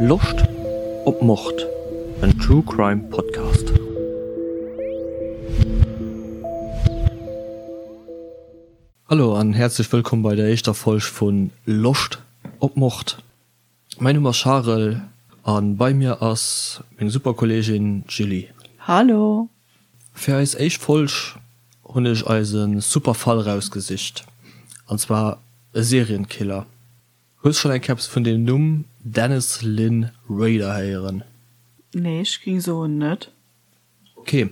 Loscht op Mord? En True Crime Podcast. Hallo an häerzlech wëllkomm bei der éischter Folg vu Loscht op Mord. Mäin Numm ass Charel an bei mir ass meng super Kolleegin Julie. Hallo! Fir eis éischt Folg hunn ech eis e super Fall rausgesicht, an zwar e Serienkiller. Hues schonn eng Kéier eppes vun dem Numm Dennis Lynn Rader héieren? Nee, ech ging soen net. Ok,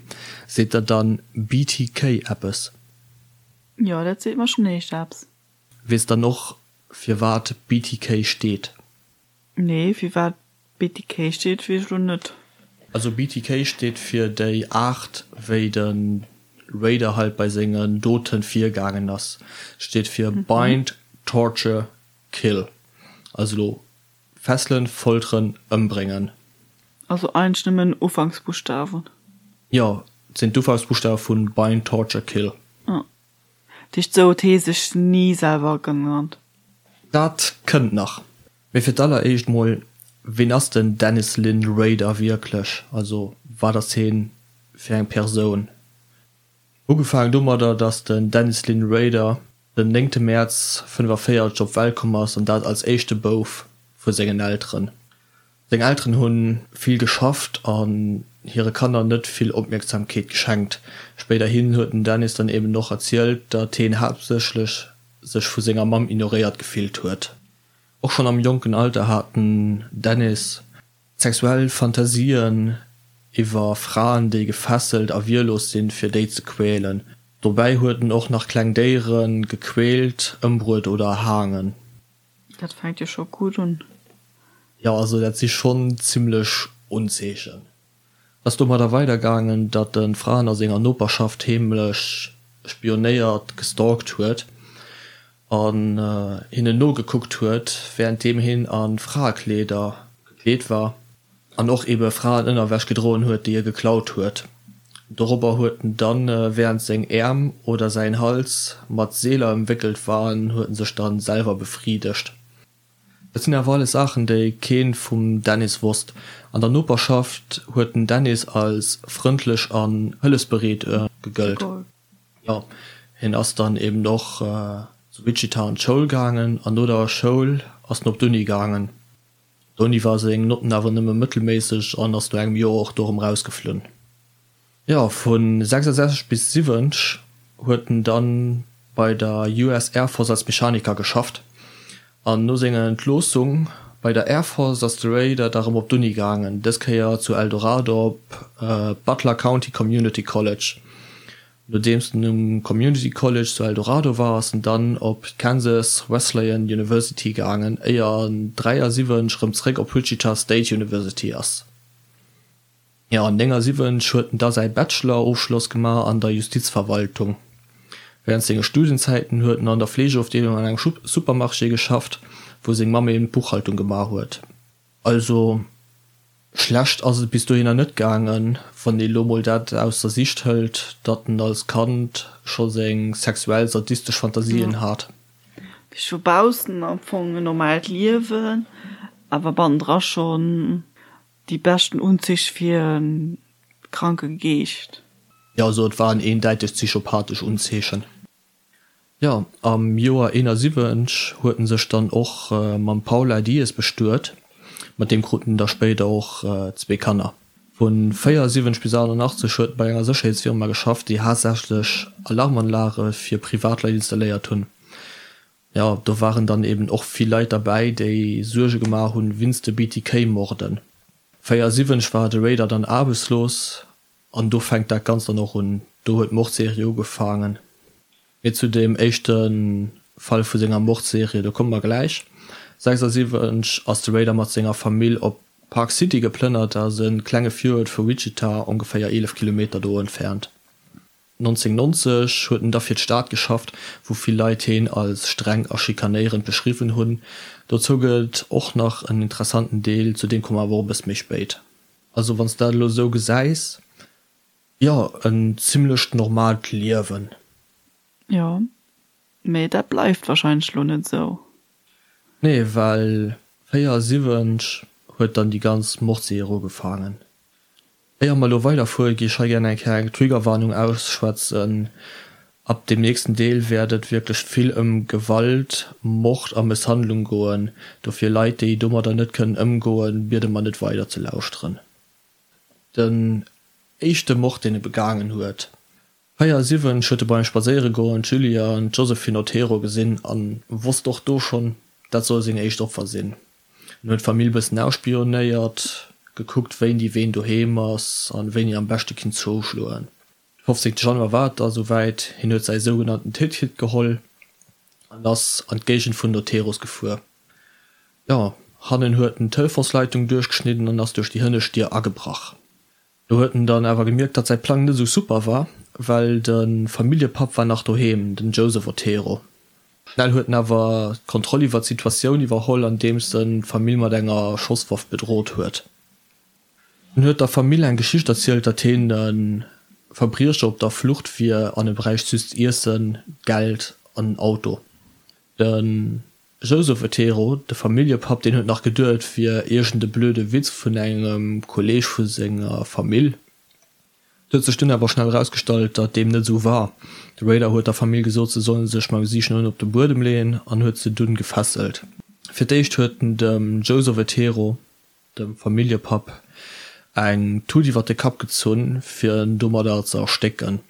seet der dann BTK eppes? Jo, dat seet mer schonn éischt eppes. Weess dann och firwat BTK steet? Nee, firwat BTK steet weess ech lo net. Also BTK steet fir déi Aart wéi de Raider halt bei sengen Doten virgaangen ass. Steet fir Bind, Torture, Kill. Also lo fesselen, folteren, ëmbréngen. Also eigentlech nëmmen Ufanksbuschtawen. Jo, et sinn d'Ufanksbuschtawe vun Bind, Torture, Kill. Ah. Dat heescht sou huet hee sech ni selwer genannt. Dat kënnt nach. Mee fir d'alleréischt mol, ween ass den Dennis Lynn Rader wierklech? Also wat ass heen fir eng Persoun? Ugefaangen domadder, datt den Dennis Lynn Rader den néngte Mäerz 45 op d'Welt komm ass an dat als éischte Bouf vu sengen Elteren. Seng Elteren hu vill geschafft an hire Kanner net vill Opmierksamkeet geschenkt. Spéiderhin huet den Dennis dann eben och erzielt, datt heen haaptsächlech sech vu senger Mamm ignoréiert gefillt huet. Och schonn am jonken Alter hat den Dennis sexuell Fantasien iwwer Fraen, déi gefesselt a wierlos sinn, fir déi ze quälen. Dobäi huet en och nach kleng Déiere gequält, ëmbruet oder erhaangen. Dat fänkt jo scho gutt un. Jo, also dat si schonn zimmlech Unzeechen. Ass domadder weidergaangen, datt e Fraen a senger Noperschaft heemlech spionéiert, gestalkt huet an hinnen nogekuckt huet, wärenddeem hien a Fraekleeder gekleet war an och ebe Fraenënnerwäsch gedroen huet, déi e geklaut huet. Dorobber huet en dann, wärend seng Äerm oder säin Hals mat Seeler ëmwéckelt waren, huet en sech dann selwer befriedegt. Dat sinn awer alles Saachen, déi keen vum Dennis wosst. An der Noperschaft huet den Dennis als frëndlech an hëllefsbereet gegëllt. Jo, hien ass dann eben och zu Wichita an d'Schoul gaangen an no der Schoul ass en op d'Uni gaangen. D'Uni war seng Notten awer nëmme mëttelméisseg an ass no engem Joer och do erëm rausgeflunn. Jo, vu 66 bis 70 huet en dann bei der US Air Force als Mechaniker geschafft an no senger Entloossung bei der Air Force ass de Rader da rëm op d'Uni gaangen, dës Kéier zu El Dorado op Butler County Community College. Nodeems en um Community College zu El Dorado war, ass en dann op d'Kansas Wesleyan University gaangen, éier en 73 rëm zréck op Wichita State University ass. Jo, an 79 huet en da säi Bachelor-Ofschloss gemaach an der Justizverwaltung. Wärend senge Studienzäiten huet en an der Fleegeofdeelung an engem Supermarché geschafft, wou seng Mamm eben d'Buchhaltung gemaach huet. Also schlecht ass et bis dohinner net gaangen, wann ee lo mol dat aus der Sicht hëlt, datt en als Kand scho seng sexuell sadistesch Fantasien hat. Vu baussen am Fong en normaalt Liewen, awer bannendra schonn Déi beschten Unzich fir en kranke Geescht. Jo, also et waren eendäiteg psychopathesch Unzeechen. Jo, am Joer 71 huet en sech dann och mam Paula Diez bestuet, mat deem krut en da spéider och zwee Kanner. Vu 74 bis 88 huet en bei enger Sécherheetsfirma geschafft, déi haaptsächlech Alarmanlage fir Privatleit installéiert hunn. Jo, do waren dann eben och vill Leit derbäi, déi Suerge gemaach hunn winst de BTK-Morden. 74 war de Rader dann aarbechtslos an do fänkt dat Ganzt dann och un. Do huet d'Mordserie ugefaangen. Mee zu deem éischte Fall vu senger Mordserie, do komme mer gläich. 76 ass de Rader mat senger Famill op Park City geplënnert, dat ass e klenge Viruert vu Wichita, ongeféier 11 Kilometer do entfernt. 1990 huet en da fir d'Stad geschafft, wou vill Leit heen als streng a schikanéierend beschriwwen hunn. Dozou gëtt et och nach en interessanten Deel, zu deem komme mer awer och e bësse méi spéit. Also wann s de dat elo esou gesäis, jo, en zimmlecht normaalt Liewen. Jo, mee dat bleift wahrscheinlech elo net esou. Nee, well 74. Huet dann déi ganz Mordserie ugefaangen. Éier mer elo weiderfueren, gi ech hei gären eng Kéier eng Triggerwarnung ausschwätzen. Ab dem nächsten Deel wäert et wierklech vill ëm Gewalt, Mord a Mësshandlung goen. Dofir Leit, déi domadder net kënnen ëmgoen, biede mer net weider ze lauschteren. Den éischte Mord, deen e begaangen huet. 74 huet e beim Spadséieregoen d'Julia an d'Josephine Otero gesinn an wosst och do schonn, dat soll seng éischt Opfer sinn. En huet d'Famill bëssen ausspionéiert, gekuckt wéini ween doheem ass an wéini am beschte kinnt zouschloen. De 15 Januar war et da souwäit, hien huet säi sougenannten Ticket geholl an ass an d'Géigend vun den Oteros gefuer. Jo, hannen huet en d'Telefonsleitung duerchgeschnidden an ass duerch déi hënnescht Dier agebrach. Do huet en dann awer gemierkt, datt säi Plang net esou super war, well de Familljepapp war nach doheem, den Joseph Otero. Schnell huet en awer d'Kontroll iwwer d'Situatioun iwwerholl, andeems en d'Famill mat enger Schosswaff bedrot huet. En huet der Famill eng Geschicht erzielt, datt hien e Verbriecher op der Flucht wier an e bräicht just Iessen, Geld an en Auto. De Joseph Otero, de Familljepapp, deen huet nach geduet, et wier iergend e blöde Witz vun engem Kolleeg vu senger Famill. Et huet sech dunn awer schnell erausgestallt, datt deem net esou war. De Raider huet der Famill gesot, se solle sech mam Gesiicht no ënnen op de Buedem leeën an huet se dunn gefesselt. Fir d'éischt huet en dem Joseph Otero dem Familljepapp eng Tut iwwer de Kapp gezunn, fir en domadder ze erstécken.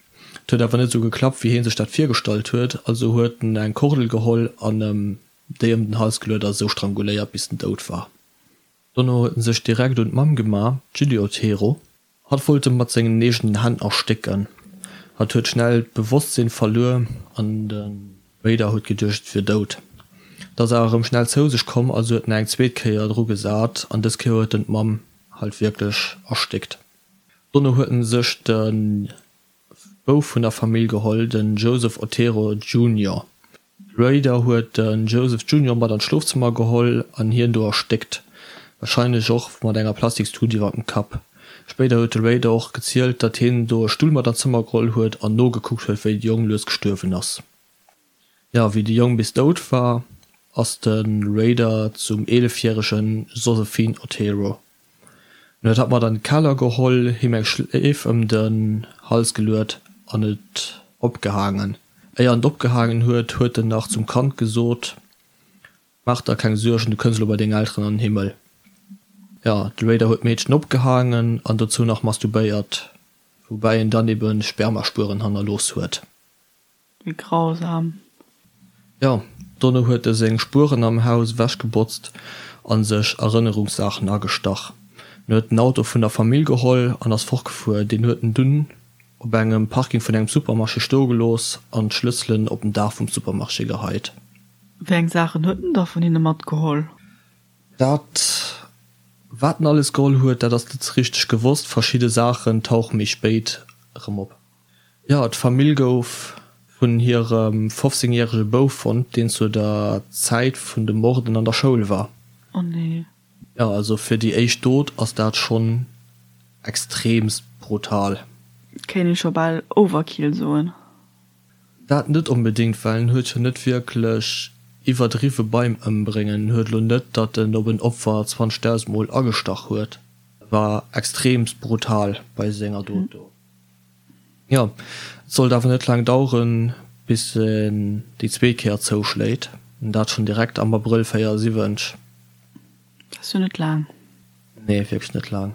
Et huet awer net esou geklappt, wéi hie sech dat virgestallt huet, also huet en eng Kordel geholl an em déi ëm den Hals geluet a sou stranguléiert, bis en dout war. Dono huet en sech direkt un d'Mamm gemaach, d'Julie Otero. Hatt wollt e mat sengen eegenen Hänn erstécken. Hatt huet schnell d'Bewosstsinn verluer an de Raider huet geduecht et wier dout. Et ass awer erëm schnell zou sech komm, also huet en eng zweet Kéier dru gesat an dës Kéier huet en d'Mamm halt wierklech erstéckt. Dono huet en sech de Bouf vun der Famill geholl, den Joseph Otero Junior. Raider huet de Joseph Junior mat an d'Schlofzëmmer geholl an hien do erstéckt, warscheinlech och mat enger Plastikstut iwwer dem Kapp. Spéider huet de Raider och gezielt, datt hien do e Stull mat an d'Zëmmer geholl huet an nogekuckt huet, wéi de Jong lues gestuerwen ass. Jo, wéi de Jong bis dout war, ass de Raider zum 11 järege Josephine Otero. En huet hatt mat an de Keller geholl, him eng Schleef ëm den Hals geluet an et opgehaangen. Éier en et opgehaangen huet, huet en nach zum Kand gesot, Maach der keng Suergen, du kënns elo bei deng Elteren an den Himmel. Jo, de Raider huet d'Meedchen opgehaangen an dozou nach masturbéiert, woubäi en dann ebe Spermaspueren hannerlooss huet. Wéi grausam. Jo, dono huet e seng Spueren am Haus ewechgebotzt a sech Erënnerungssaachen agestach. En huet den Auto vun der Famill geholl an ass fortgefuer. Deen huet en dunn op engem Parking vun engem Supermarché stoe gelooss an d'Schlësselen op den Daach vum Supermarché geheit. Wéi eng Saachen huet en da vun hinne matgeholl? Dat, wat en alles geholl huet, dat ass net richteg gewosst. Verschidde Saachen tauche méi spéit erëm op. Jo, d'Famill gouf vun hirem 15 järege Bouf fonnt, deen zu der Zäit vun de Morden an der Schoul war. Oh nee. Jo, also fir déi éischt Dot ass dat schonn extreemst brutal. Kéint ee scho bal Overkill soen. Dat net onbedéngt, well en huet jo net wierklech iwwerdriwwe beim Ëmbréngen. En huet elo net, datt en op en Opfer 20.000 Mol agestach huet. E war extreemst brutal bei senger Dot do. Jo, et sollt awer net laang daueren, bis en déi zweet Kéier zouschléit, an dat schonn direkt am Abrëll 74. Dat ass jo net laang. Nee, wierklech net laang.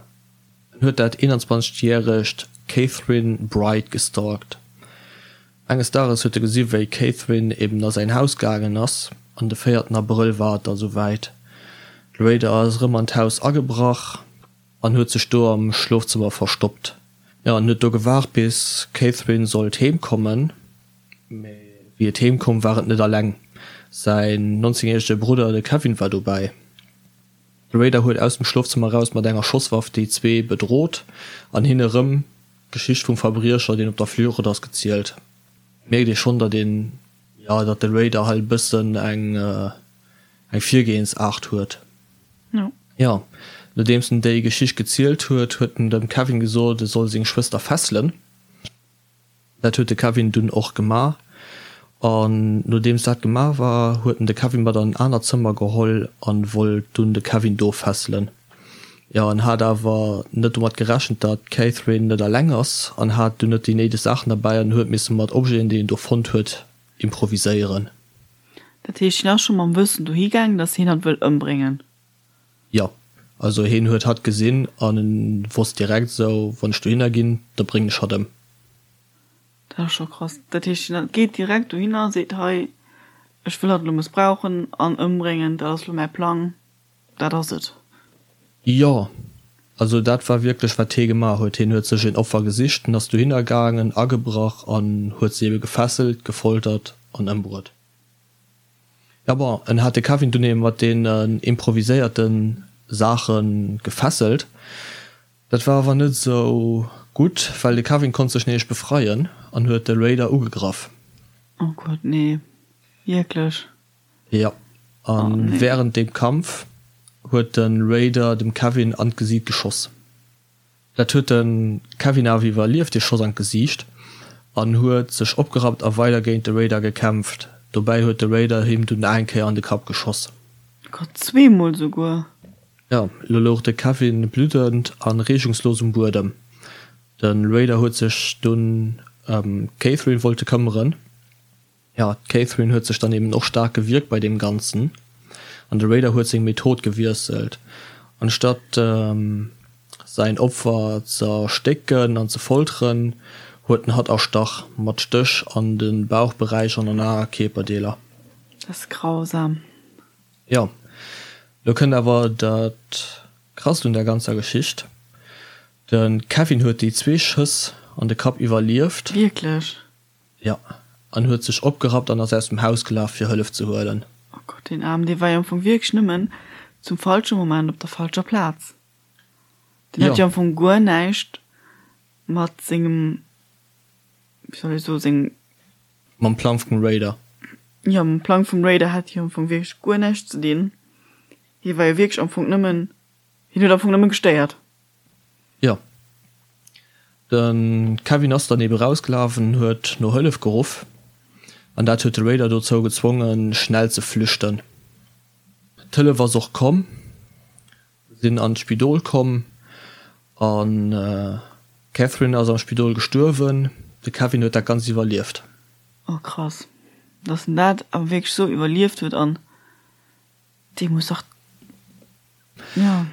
En huet dat 21 järegt Katherine Bright gestalkt. Enges Dages huet e gesi wéi d'Katherine eben a säin Haus gaangen ass, an de véierten Abrëll war et da souwäit. De Raider ass erëm an d'Haus agebrach an huet sech do am Schlofzëmmer verstoppt. Jo, en huet do gewaart bis d'Catherine sollt heem kommen, mee wéi et heem koum war et net alleng, säin 19 järege Brudder de Kevin war dobäi. De Raider huet aus dem Schlofzëmmer eraus mat enger Schosswaff déi zwee bedrot an hinne rëm d'Geschicht vum Verbriecher deen op der Flucht ass gezielt. Mierkt ee schonn datt een, jo, datt de Raider hei e bëssen eng eng Virgehensaart huet. Jo, nodeems en déi Geschicht gezielt huet, huet en dem Kevin gesot, e soll seng Schwëster fesselen. Dat huet de Kevin dunn och gemaach. An nodeems dat gemaach war, huet en de Kevin mat an en anert Zëmmer geholl an wollt dunn de Kevin do fesselen. Jo, en hat awer net domat gerechent, datt d'Catherine net eleng ass an hat dunn net déi néideg Saachen derbäi an huet misse mat Objeten, déi en do fonnt huet, improviséieren. Dat heescht, hien ass scho mam Wëssen dohi gaangen, datt hien hatt wëll ëmbréngen? Jo, also hien huet hatt gesinn an en wosst direkt esou, wann ech dohinner ginn, da bréngen ech hatt ëm. Dat ass scho krass. Dat heescht, hien geet direkt dohinner, seet, hei, ech wëll hatt elo mëssbrauchen an ëmbréngen, dat ass elo mäi Plang. Dat ass et. Jo, also dat war wierklech wat hee gemaach huet. Hien huet sech een Opfer gesicht, en ass dohinner gaangen, agebrach an huet se ebe gefesselt, gefoltert an ëmbruet. Jo bon, en hat de Kevin dunn ebe mat deenen improviséierte Saache gefesselt. Dat war awer net esou gutt, well de Kevin konnt sech nämlech befreien an huet de Raider ugegraff. Oh Gott, nee, wierklech? Jo, a wärend deem Kampf huet de Raider dem Kevin an d'Gesiit geschoss. Dat huet de Kevin awer iwwerlieft, dee Schoss an d'Gesiicht, an huet sech opgerappt a weider géint de Raider gekämpft. Dobäi huet de Raider him dunn eng Kéier an de Kapp geschoss. Gott, zweemol souguer! Jo, elo louch de Kevin bluddend a reegungslos um Buedem. De Raider huet sech dunn ëm d'Catherine wollte këmmeren. Jo, d'Catherine huet sech dann eben och staark gewierkt bei deem Ganzen an de Raider huet seng Method gewiesselt. Anstatt säin Opfer z'erstécken an ze folteren, huet en hatt erstach, mat Stéch an de Bauchberäich an an aner Kierperdeeler. Dat ass grausam. Jo, lo kënnt awer dat Krasst un der ganzer Geschicht, De Kevin huet déi zwee Schëss an de Kapp iwwerlieft. Wierklech? Jo, an huet sech opgerappt an ass aus dem Haus gelaf fir Hëllef ze huelen. Oh Gott, deen Aarmen, dee war jo am Fong wierklech nëmmen zum falsche Moment op der falscher Plaz. Deen hat jo am Fong guer näischt mat sengem, wéi soll ech soen, sengem. Mam Plang vum Raider. Jo, mam Plang vum Raider hat hie am Fong wierklech guer näischt ze dinn. Hie war jo wierklech am Fong nëmmen, hien huet am Fong nëmme gestéiert. Jo. De Kevin ass dann ebe rausgelaf an huet no Hëllef geruff. An dat huet de Raider dozou gezwongen, schnell ze flüchten. D'Hëllef ass och komm, sinn an d'Spidol komm an d'Catherine ass am Spidol gestuerwen. De Kevin huet dat Ganzt iwwerlieft. Oh krass, dass en dat awer wierklech sou iwwerlieft huet an Dee muss dach, jo.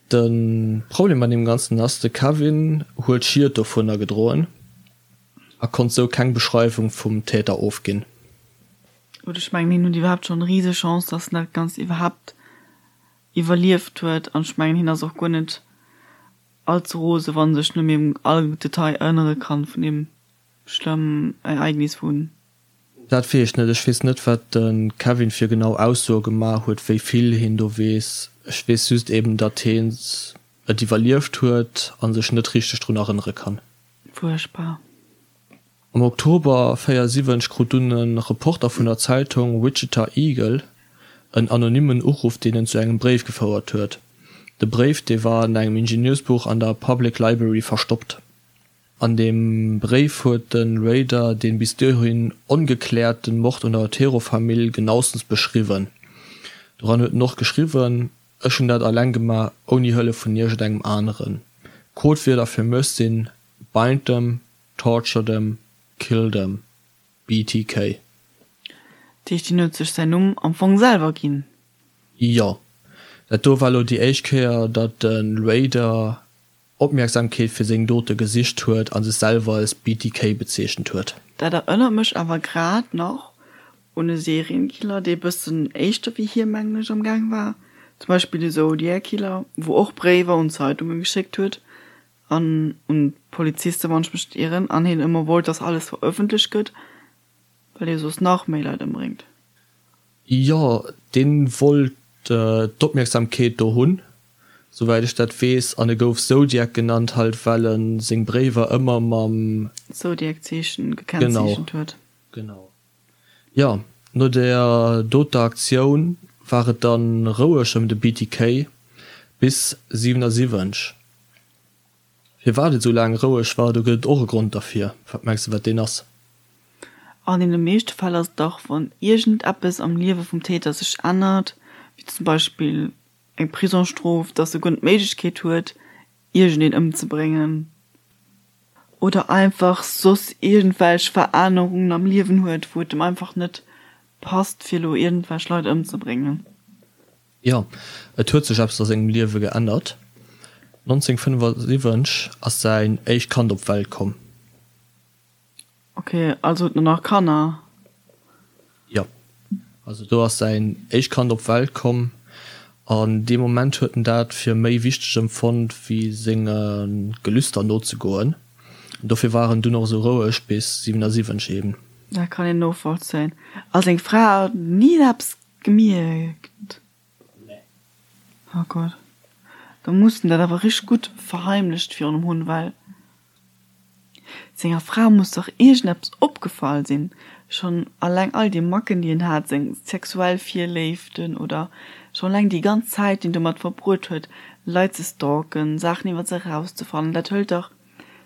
De Problem bei deem Ganzen ass, de Kevin huet Schied dovunner gedroen a konnt sou keng Beschreiwung vum Täter ofginn. Gutt, ech mengen, hien huet iwwerhaapt schonn rise Chance, dass en dat Ganzt iwwerhaapt iwwerlieft huet. An ech mengen, hien ass och guer net all ze rose, wann e sech net méi un all Detail erënnere kann vun deem schlëmmen Ereignis vun Dat weess ech net. Ech weess net, wat de Kevin fir genau Aussoe gemaach huet, wéi vill hien do weess. Ech weess just eben, datt hien et iwwerlieft huet a sech net richteg drun erënnere kann. Fuerchtbar. Am Oktober 74 krut dunn e Reporter vun der Zeitung Wichita Eagle en anonymmen Uruff, deen en zu engem Bréif gefouert huet. De Bréif, dee war an engem Ingenieursbuch an der Public Library verstoppt. An deem Bréif huet de Rader dee bis dohin ongekläerten Mord un der Otero-Famill genaustens beschriwwen. Doran huet en och geschriwwen, Ech hunn dat alleng gemaach, ouni Hëllef vun iergendengem aneren. Codewierder fir mech sinn, Bind them, torture them, kill them. BTK. Dat heescht, hien huet sech säin Numm am Fong selwer ginn? Jo. Dat do war elo déi éischt Kéier, datt de Rader Opmierksamkeet fir seng Dote gesicht huet a sech selwer als BTK bezeechent huet. Dat erënnert mech awer grad nach un e Serienkiller, dee bëssen éischter wéi hie, mengen ech, am Gaang war, zum Beispill de Zodiac Killer, wou och Bréiwer un Zeitunge geschéckt huet an un d'Polizisten, wann ech mech net ieren, an hien ëmmer wollt, dass alles verëffentlecht gëtt, well hie soss nach méi Leit ëmbréngt. Jo, deen wollt d'Opmierksamkeet do hunn, souwäit ech dat weess, an e gouf Zodiac genannt, halt well en seng Bréiwer ëmmer mam. Zodiac-Zeechen gekennzeechent huet. Genau. Jo, no der doter Aktioun war et dann roueg ëm de BTK bis 77. Firwat et esou laang roueg war, do gëtt et och e Grond derfir. Wat mengs de, wat deen ass? An deene meeschte Fäll ass et dach, wann iergendeppes am Liewe vum Täter sech ännert, wéi zum Beispill. eng Prisongsstrof, dass e guer net d'Méiglechkeet huet, iergendeen ëmzebréngen oder einfach soss iergendwelch Verännerungen am Liewen huet, wou et em einfach net passt, fir elo iergendwelch Leit ëmzebréngen. Jo, et huet sech eppes a sengem Liewe geännert. 1975 ass säin éischt Kand op d'Welt komm. Ok, also huet en nach Kanner? Jo, also do ass säin éischt Kand op d'Welt komm an dee Moment huet en dat fir méi wichteg empfonnt wéi senge Gelüster nozegoen. An dofir war en dunn och esou roueg bis 77 eben. Dat kann een novollzéien. A seng Fra huet ni eppes gemierkt? Nee. Oh Gott, da muss en dat awer richteg gutt verheimlecht virun em hunn, well Senger Fra muss dach iergendeppes opgefall sinn, schonn alleng all déi Macken déi en hat, seng sexuell Virléiften oder schonn alleng déi ganz Zäit déi en domat verbruet huet Leit ze stalken, Saachen iwwer se erauszefannen, dat hëlt dach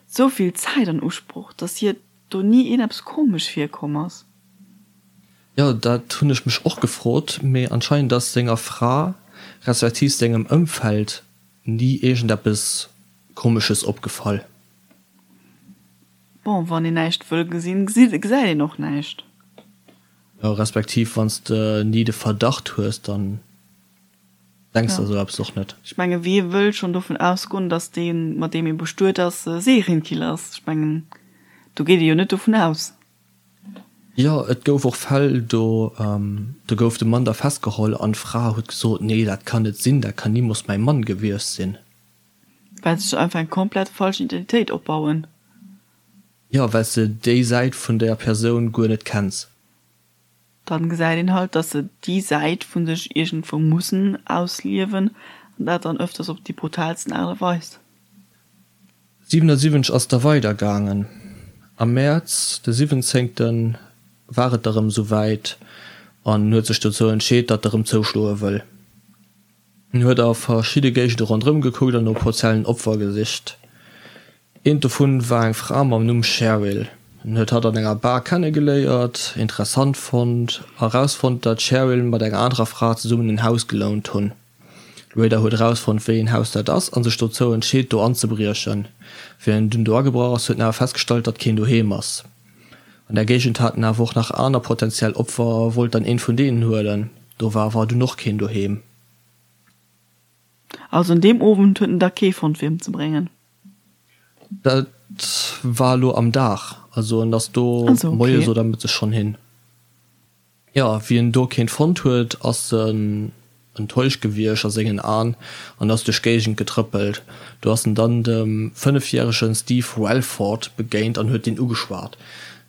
sou vill Zäit an Usproch, dass hir do ni iergendeppes komesch virkomm ass. Jo, dat hunn ech mech och gefrot, mee anscheinend ass senger Fra respektiv sengem Ëmfeld ni iergendeppes Komesches opgefall. Bon, wann een näischt wëll gesinn, gesäit een och näischt. Jo, respektiv wann s de ni de Verdacht hues, dann denks de esou eppes och net. Ech menge wie wëll schonn dovun ausgoen, datt dee mat deem ee bestuet ass e Serienkiller ass? Ech mengen do geet ee jo net dovun aus. Jo, et gouf och Fäll, do do gouf de Mann da festgeholl an d'Fra huet gesot, nee dat kann net sinn, dat kann nimools mäi Mann gewiescht sinn. Well se sech einfach eng komplett falsch Identitéit opbauen. Jo, well s de déi Säit vun der Persoun guer net kenns. Dann gesäit een halt, dass se déi Säit vun sech iergendwou mussen ausliewen, an dat dann öfters op déi brutalsten Aart a Weis. 77 ass da weider gaangen. Am Mäerz de siwwenzéngten war et da rëm esou wäit an en huet sech dozou entscheet, datt e rëm zouschloe wëll. En huet a verschidde Géigende ronderëm gekuckt an no potentiellen Opfer gesicht. Eent dovun war eng Fra mam Numm Cheryl. En huet hatt an enger Bar kennegeléiert, interessant fonnt a rausfonnt, datt d'Cheryl mat enger anerer Fra zesummen en Haus gelount hunn. De Raider huet erausfonnt, wéi een Haus dat ass a sech dozou entscheet, do anzebriechen. Wéi en dunn do agebrach ass, huet en awer festgestallt, datt keen doheem ass. An der Géigend haten awer och nach aner potentiell Opfer a wollt dann eent vun deenen huelen. Do war awer dunn och keen doheem. Also un deem Owend huet en da kee fonnt fir emzebréngen? Dat war elo am Dag, also en ass do moies oder mëttes schonn hin. Jo, wéi en do keent fonnt huet, ass en enttäuscht gewiescht a sengen An an ass duerch d'Géigend getrëppelt. Do ass en dann dem fënnefjärege Steve Relford begéint an huet deen ugeschwat.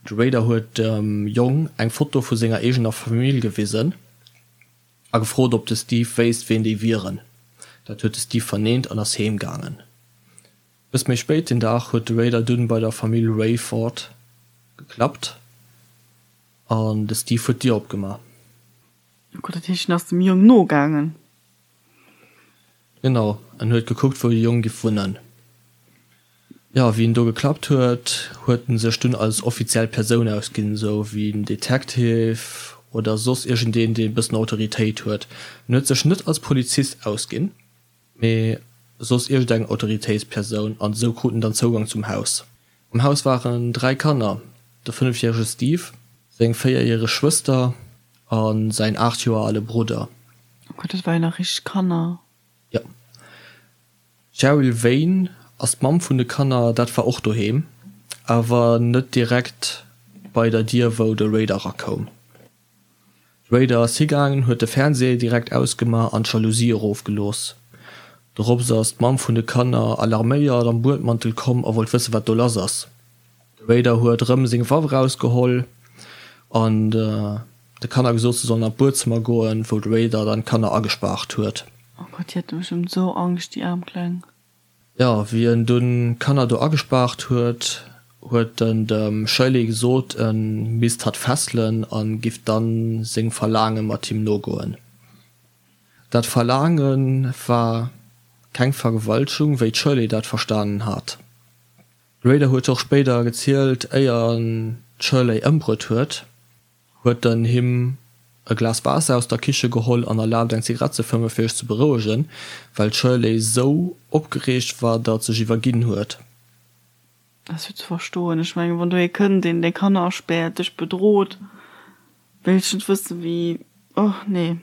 De Raider huet dem Jong eng Foto vu senger eegener Famill gewisen a gefrot, ob de Steve wéisst, ween déi wieren. Dat huet de Steve verneent an ass heem gaangen. Bëss méi spéit deen Dag huet de Raider dunn bei der Famill Rayford geklappt. An de Steve huet d'Dier opgemaach. Oh Gott, dat heescht, en ass dem Jong nogaangen? Genau, en huet gekuckt, wou de Jong giff wunnen. Jo, wéi en do geklappt huet, huet en sech dunn als offiziell Persoun ausginn, esou wéi en Detective oder soss iergendeen, deen e bëssen Autoritéit huet. En huet sech net als Polizist ausginn, mee soss iergendeng Autoritéitspersoun, an esou krut en dann Zougang zum Haus. Am Haus waren 3 Kanner, de fënnefjärege Steve, seng véierjäreg Schwëster a säin 8 Joer ale Brudder. Oh Gott, dat ware jo nach richteg Kanner. Jo. D'Cheryl Wayne ass d'Mamm vun de Kanner, dat war och doheem, awer net direkt bei der Dier wou de Raider erakoum. De Raider ass higaangen, huet de Fernseh direkt ausgemaach an d'Jalousie erofgelooss. Dorops ass d'Mamm vun de Kanner alarméiert am Buedmantel komm a wollt wëssen, wat do lass ass. De Raider huet erëm seng Waff erausgeholl an de Kanner gesot, se sollen an d'Buedzëmmer goen, wou de Raider dann d'Kanner agespaart huet. Oh Gott, déi hate bestëmmt esou Angscht, déi aarm Kleng. Jo, wéi en dunn d'Kanner do agespaart huet, huet en dem Shirley gesot, e misst hatt fesselen a giff dann sengem Verlaange mat him nogoen. Dat Verlaange war keng Vergewaltegung, wéi d'Shirley dat verstanen hat. De Rader huet och spéider gezielt, éier en d'Shirley ëmbruet huet, huet en him. e Glas Waasser aus der Kiche geholl an erlaabt eng Zigarett ze fëmmen, fir sech ze berouegen, well d'Shirley sou opgereegt war, datt sech iwwerginn huet. Dat ass jo ze verstoen. Ech mengen, wann do ee kënnt, deen deng Kanner aspäert, dech bedroht, wéilt ech net wëssen, wéi, oh nee.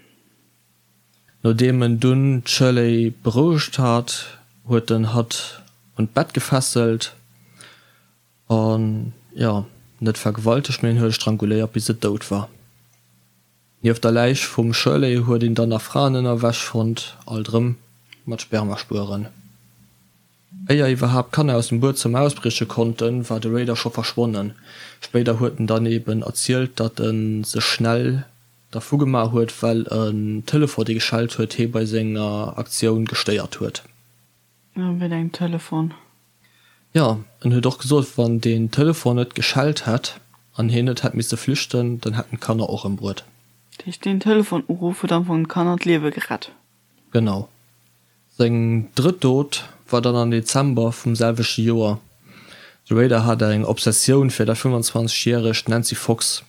Nodeem en dunn d'Shirley berouegt hat, huet en hatt un d'Bett gefesselt an, jo, net vergewaltegt, mee en huet e stranguléiert, bis et dout war. Nieft der Läich vum Shirley huet een dann nach Fraenënnerwäsch fonnt, alt erëm mat Spermaspueren. Éier iwwerhaapt d'Kanner aus dem Buedzëmmer ausbrieche konnten, war de Raider scho verschwonnen. Spéider huet en dann eben erzielt, datt e sech schnell dervu gemaach huet, well en Telefon, dee geschellt huet, hee bei senger Aktioun gestéiert huet. Wéi engem Telefon? Jo, en huet och gesot, wann deen Telefon net geschellt hätt an hien net hätt misse flüchten, dann hätten d'Kanner och ëmbruet. Dat heescht, deen Telefonuruff huet am Fong de Kanner d'Liewe gerett. Genau. Seng drëtt Dot war dann am Dezember vum selwechte Joer. De Rader hat eng Obsessioun fir dat 25 järegt Nancy Fox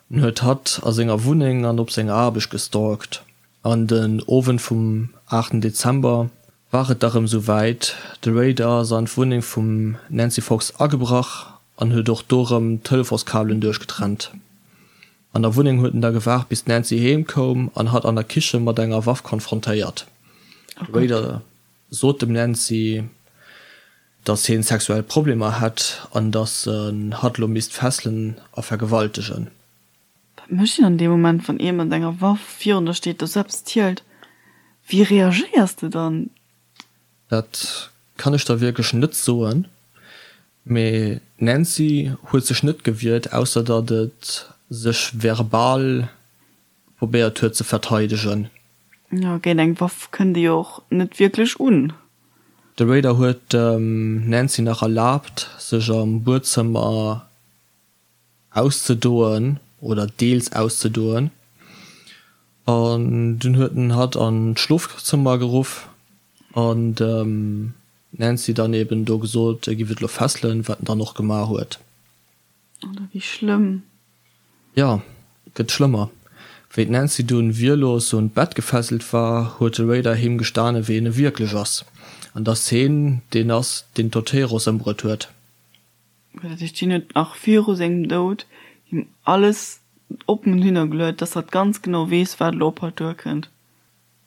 en huet hatt a senger Wunneng an op senger Aarbecht gestalkt. An den Owend vum 8 Dezember war et da rëm sou wäit, de Rader ass an d'Wunneng vum Nancy Fox agebrach an huet och do rëm d'Telefonskabelen duerchgetrennt. An der Wunneng huet en da gewaart bis d'Nancy heem koum an hatt an der Kiche mat enger Waff konfrontéiert. De Rader sot dem Nancy, dass hien sexuell Problemer hätt an dass en hatt lo misst fesselen a vergewaltegen. Wat mécht een an deem Moment, wann ee mat enger Waff virun der steet, der sou eppes zielt? Wéi reagéiers de dann? Dat kann ech der wierklech net soen, mee d'Nancy huet sech net gewiert, ausser datt et sech verbal probéiert huet ze verteidegen. Jo, géint eng Waff kënnt ee jo och net wierklech un. De Raider huet dem Nancy nach erlaabt, sech am Buedzëmmer auszedoen oder deels auszedoen an dunn huet en hatt an d'Schlofzëmmer geruff an dem Nancy dann eben do gesot, e giff et lo fesselen, wat en dann och gemaach huet. Oder wéi schlëmm. Jo, et gëtt schlëmmer. Wéi d'Nancy dunn wierlos un d'Bett gefesselt war, huet de Raider him gestane wien e wierklech ass an dass heen deen ass, deen d'Oteros ëmbruet huet. Dat heescht, hien huet nach viru sengem Doud him alles oppen hinnergeluet, dass hatt ganz genau weess, wat elo op hatt duerkënnt.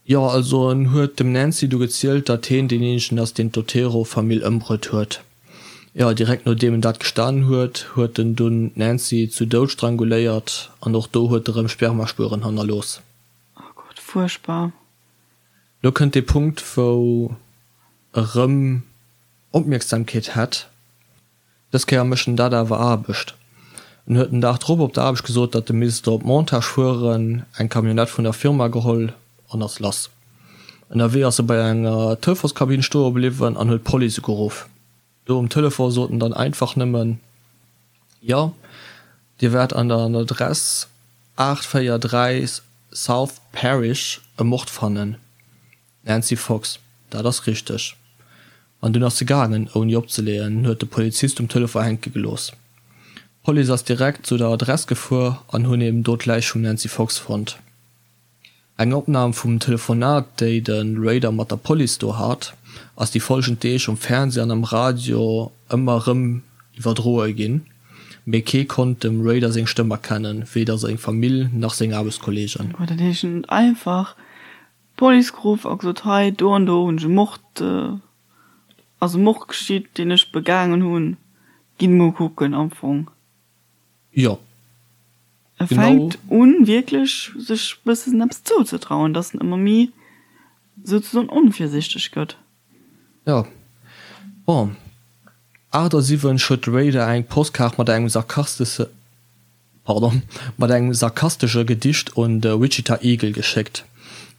Jo, also en huet dem Nancy du gezielt, datt heen deen eenzegen ass, deen d'Otero-Famill ëmbruet huet. Jo, direkt nodeem en dat gestanen huet, huet en dunn d'Nancy zu Doud stranguléiert an och do huet e rëm Spermaspueren hannerlooss. Oh Gott, fuerchtbar. Lo kënnt dee Punkt, wou e rëm Opmierksamkeet hätt. Dës Kéier mécht en dat awer Aarbecht. En huet den Dag drop op der Aarbecht gesot, datt e misst op Montage fueren, eng Camionnette vun der Firma geholl an ass lass. Ënnerwee ass e bei enger Telefonskabinn stoe bliwwen an huet d'Police ugeruff. Do um Telefon sot en dann einfach nëmmen, Jo, Dir wäert an der Adress 843 South Parish e Mord fannen. Nancy Fox, Dat ass richteg. An dunn ass se gaangen, ouni opzeleeën, an huet de Polizist um Telefon hänke gelooss. D'Police ass direkt zu der Adress gefuer an hunn eben do d'Läich vum Nancy Fox fonnt. Eng Opnam vum Telefonat, déi de Rader mat der Police do hat, ass déi folgend Deeg um Fernsee an am Radio ëmmer erëm iwwerdroe ginn, mee kee konnt dem Rader seng Stëmm erkennen, weder seng Famill nach seng Aarbechtskolleegen. Dat heescht, en huet einfach D'Police geruff a gesot, hei do an do hunn ech e Mord, ass e Mord geschitt, deen ech begaangen hunn, gitt emol kucken am Fong. Jo, E genau. Fänkt un wierklech sech bëssen eppes zouzetrauen, dass en ëmmer méi souzesoen onvirsichteg gëtt. Jo, bon, 78 huet de Raider eng Postkaart mat engem sarkastesche. Pardon, mat engem sarkastesche Gedicht un de Wichita Eagle geschéckt.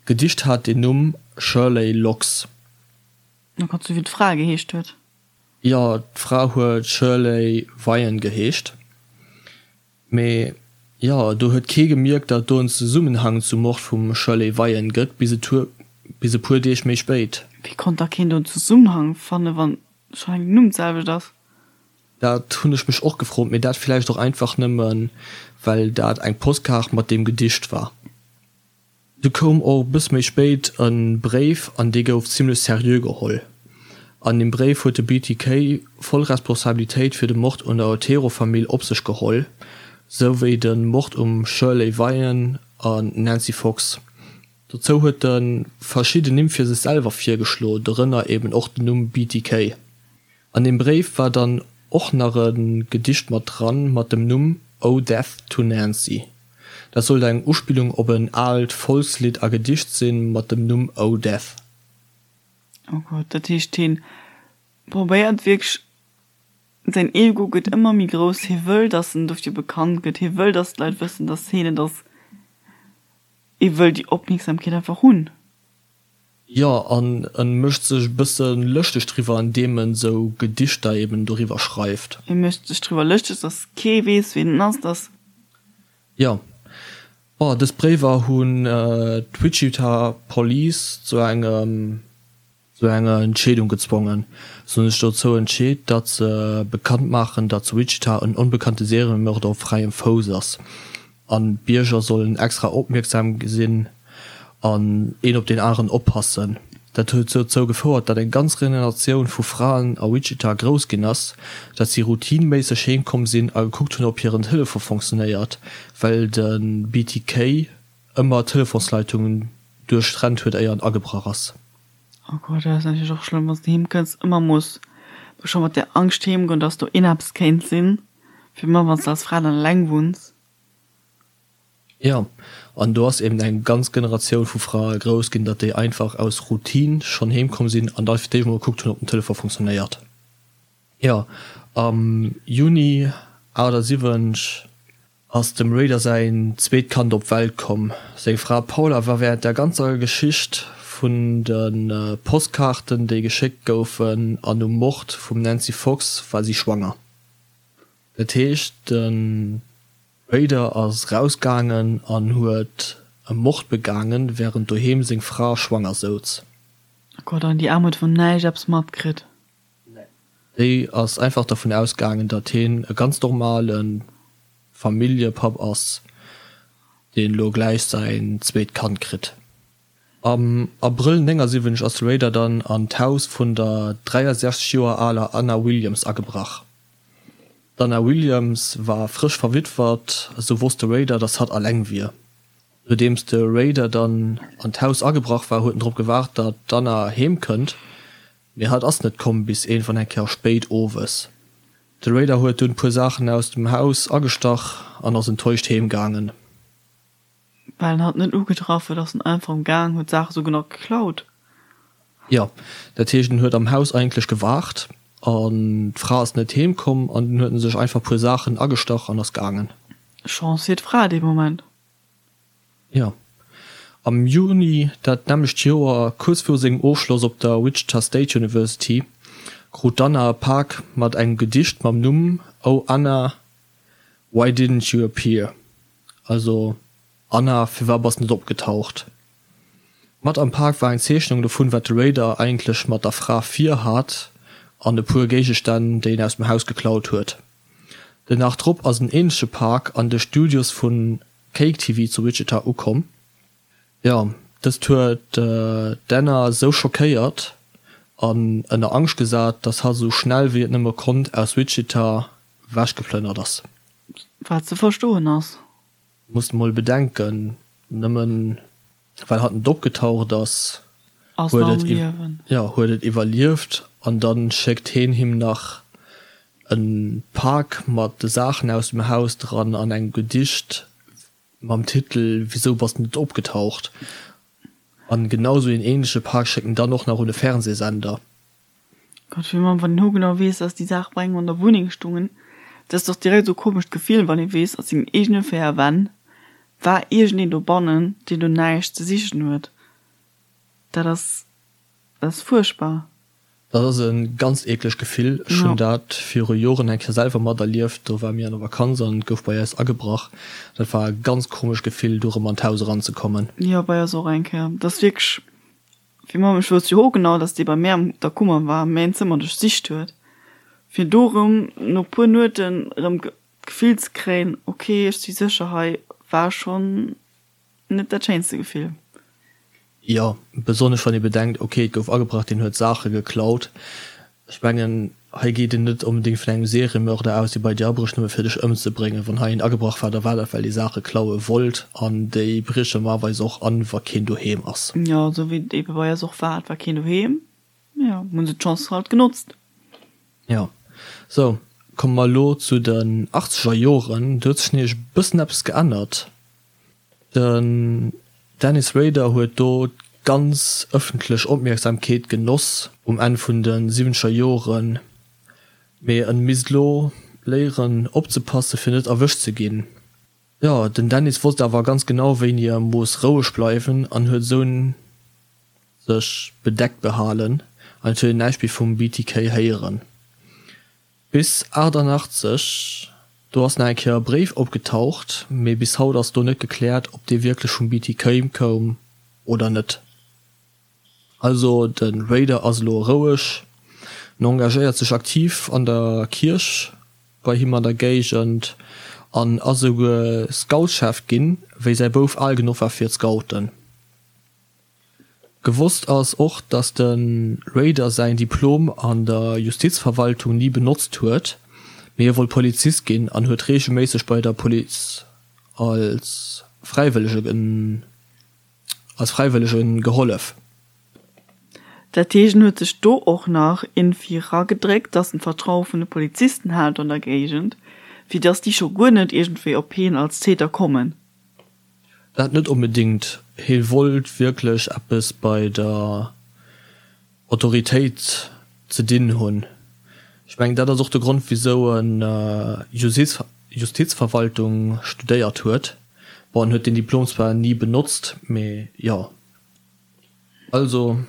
D'Gedicht hat den Numm Shirley Locks. Oh Gott, sou wéi d'Fra geheescht huet. Jo, d'Fra huet Shirley Vian geheescht. Mee jo, do huet kee gemierkt, datt do en Zesummenhang zum Mord vum Shirley Vian gëtt, bis e puer Deeg méi spéit. Wéi konnt da keen do en Zesummenhang fannen, wann schonn eng den Numm d'selwecht ass? Dat hunn ech mech och gefrot, mee dat villäicht och einfach nëmmen, well dat eng Postkaart mat deem Gedicht war. Du koum och bëss méi spéit e Bréif an dee gouf zimlech seriö geholl. An deem Bréif huet de BTK voll Responsabilitéit fir de Mord un der Otero-Famill op sech geholl, sou wéi de Mord um Shirley Vian an Nancy Fox. Dozou huet e verschidden Nimm fir sech selwer virgeschlo, dorënner eben och den Numm BTK. An deem Bréif war dann och nach e Gedicht mat dran, mat dem Numm Oh Death to Nancy. Dat sollt eng Uspillung op en aalt Volkslidd a Gedicht sinn, mat dem Numm Oh Death. Oh Gott, dat heescht hien probéiert wierklech, säin Ego gëtt ëmmer méi grouss, hie wëll dass en dofir bekannt gëtt, hie wëll dass d'Leit wëssen dass hien et ass, hie wëll déi Opmierksamkeet einfach hunn. Jo, an en mécht sech e bësse lëschteg driwwer, an deem en sou Gedichter eben doriwwer schreift. E mécht sech driwwer lëschteg, dass kee weess, wien en ass, dass. Jo. Bon, dës Bréiwer hunn d'Wichita Police zu engem, zu enger Entscheedung gezwongen. Se hunn sech dozou entscheet, datt se bekannt maachen, datt zu Wichita en onbekannte Seriemörder op fräiem Fouss ass. An d'Bierger sollen extra opmierksam sinn an een op deen aneren oppassen. Dat huet dozou gefouert, datt eng ganz Generatioun vu Fraen a Wichita grouss ginn ass, datt si routineméisseg heem komm sinn a gekuckt hunn, ob hiren Telefon fonctionnéiert, well de BTK ëmmer d'Telefonsleitungen duerchtrennt huet, éier en agebrach ass. Oh Gott, dat ass natierlech och schlëmm, wann s de heem kënns, ëmmer muss scho mat där Angscht heem goen, datt do een eppes kéint sinn, fir ëmmer wann s de als Fra dann eleng wunns. Jo, an do ass eben eng ganz Generatioun vu Frae grouss ginn, datt déi einfach aus Routine schonn heem komm sinn an da fir d'éischt mol gekuckt hunn, ob den Telefon funktionéiert. Jo, am Juni 78 ass dem Rader säin zweet Kand op d'Welt komm. Seng Fra Paula war wärend der ganzer Geschicht vun de Postkaarten, déi geschéckt goufen, an um Mord vum Nancy Fox war si schwanger. Dat heescht, de Rader ass rausgaangen an huet e Mord begaangen, wärend doheem seng Fra schwanger souz. Oh Gott, an déi Aarm huet vun näischt eppes matkritt? Nee. Déi ass einfach dervun ausgaangen, datt hien e ganz normale Familljepapp ass, deen elo gläich säin zweet Kand kritt. Am Abrëll 79 ass de Rader dann an d'Haus vun der 63 Joer aler Anna Williams agebrach. D'Anna Williams war frësch verwittwert, esou wosst de Rader, datt hatt alleng wier. Nodeems de Rader dann an d'Haus agebrach war, huet en drop gewaart, datt d'Anna heem kënnt, mee hatt ass net komm bis iergendwann eng Kéier spéit owes. De Rader huet dunn puer Saachen aus dem Haus agestach an ass enttäuscht heem gaangen. Well en hatt net ugetraff huet, ass en einfach am Gaang, huet d'Saache souguer nach geklaut. Jo, dat heescht en huet am Haus eigentlech gewaart an d'Fra ass net heem komm an dunn huet en sech einfach puer Saachen agestach an ass gaangen. Chance fir d'Fra dee Moment. Jo. Am Juni dat nämmlecht Joer, kuerz viru sengem Ofschloss op der Wichita State University, krut d'Anna e Pak mat engem Gedicht mam Numm Oh Anna, why didn't you appear? Also Anna, firwat bass net opgetaucht? Mat am Pak war eng Zeechnung dovun, wat de Raider eigentlech mat der Fra vir hat an e puer Géigestänn, déi en aus dem Haus geklaut huet. Den Dag drop ass en änleche Pak an de Studios vu KAKE-TV zu Wichita ukomm. Jo, dëst huet d'Anna sou schockéiert an ënner Angscht gesat, dass hatt esou schnell wéi et nëmme konnt aus Wichita wechgeplënnert ass. Wat ze verstoen ass. Muss mol bedenken, nëmmen well hatt net opgetaucht ass, huet et jo huet et iwwerlieft an dann schéckt heen him nach en Pak mat de Saachen aus dem Haus dran an engem Gedicht mam Titel Wisou bass de net opgetaucht? An genau sou een ähnleche Pak schéckt en dann och nach un e Fernsehsender. Gott, wéi man, wann een hogenau weess, dass déi Saach bei engem an der Wunneng stungen, dat ass dach direkt esou komescht Gefill, wann ee weess, a sengen eegene 4 Wänn war iergendeen dobannen, deen do näischt ze sichen huet. Dat ass, dat ass fuerchtbar. Dat ass e ganz eeklegt Gefill. Ech hunn dat viru Joren eng Kéier selwer materlieft. Do ware mir an der Vakanz an et gouf bei eis agebrach. Dat war e ganz komescht Gefill, do erëm an d'Haus eranzekommen. Jo, bei eis och eng Kéier. Dat ass wierklech Fir Mamm, ech wousst jo ho genau, dass dee bei mär an der Kummer war, mäin Zëmmer duerchsicht huet. Fir do rëm no puer Nueten rëm d'Gefill ze kréien, ok ech si sécher hei, war schonn net dat schéinste Gefill. Jo, besonnesch wann ee bedenkt, ok et gouf agebrach, deen huet Saache geklaut. Ech mengen, hei geet een net onbedéngt vun engem Seriemörder aus, dee bei dir abrécht nëmme fir dech ëmzebréngen. Wann hei een agebrach war, da war dat well dee Saache klaue wollt an déi brieche normalerweis och an, wa keen doheem ass. Jo, esou wéi et ebe bei eis och war, et war keen doheem, jo, hunn se d'Chance halt genotzt. Jo, sou, komme mer elo zu den achtzeger Joren. Do huet sech nämlech e bëssen eppes geännert. Den Dennis Rader huet do d'ganz ëffentlech Opmierksamkeet genoss um Enn vun de siwwenzeger Joren, mee en misst lo léieren opzepasse fir net erwëscht ze ginn. Jo, den Dennis wosst awer ganz genau wéini e muss roueg bleiwen an huet esou sech bedeckt behalen an et huet een näischt méi vum BTK héieren. Bis 88, do ass nach eng Kéier e Bréif opgetaucht, mee bis haut ass do net gekläert, ob dee wierklech vum BTK koum oder net. Also de Raider ass elo roueg, en engagéiert sech aktiv an der Kierch bei him an der Géigend an ass esouguer Scoutschef ginn, wéi säi Bouf al genuch war fir d'Scouten. Gewosst ass och, datt de Rader säin Diplom an der Justizverwaltung ni benotzt huet, mee hie wollt Polizist ginn an huet reegelméisseg bei der Police als Fräiwëllege als Fräiwëllege gehollef. Dat heescht, en huet sech do och nach iergendwéi eragedréckt, datt en d'Vertraue vun de Polizisten hat an der Géigend, fir datt déi scho guer net iergendwéi op hien als Täter kommen. Dat net onbedingt. Hie wollt wierklech eppes bei der Autoritéit ze dinn hunn. Ech mengen, dat ass och de Grond, wisou en Justizverwaltung studéiert huet. Bon, en huet deen Diplom zwar ni benotzt, mee jo. Also,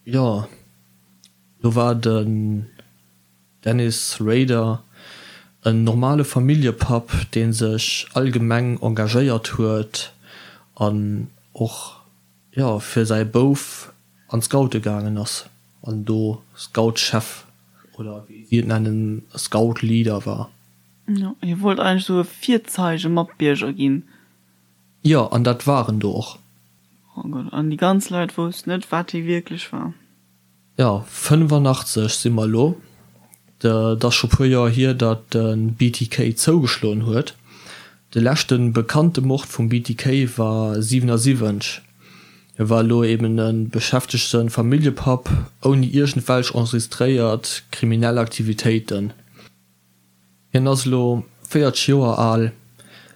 jo, do war den. Dennis Rader, En normale Familljepapp, dee sech allgemeng engagéiert huet an och, jo, fir säi Bouf an d'Scoute gaangen ass an do Scoutschef oder wéi si et nennen, Scoutleader war. Jo, hie wollt eigentlech esou e Virzeige-Matbierger ginn. Jo, an dat war en do och. Oh Gott, an déi ganz Leit woussten net, wat hie wierklech war. Jo, 85 si mer elo. Et ass scho puer Joer hier, datt de BTK zougeschloen huet. De leschte bekannte Mord vum BTK war 77. Hie war elo eben e beschäftegte Familljepapp ouni iergendwelch enregistréiert kriminell Aktivitéiten. Hien ass elo 40 Joer al,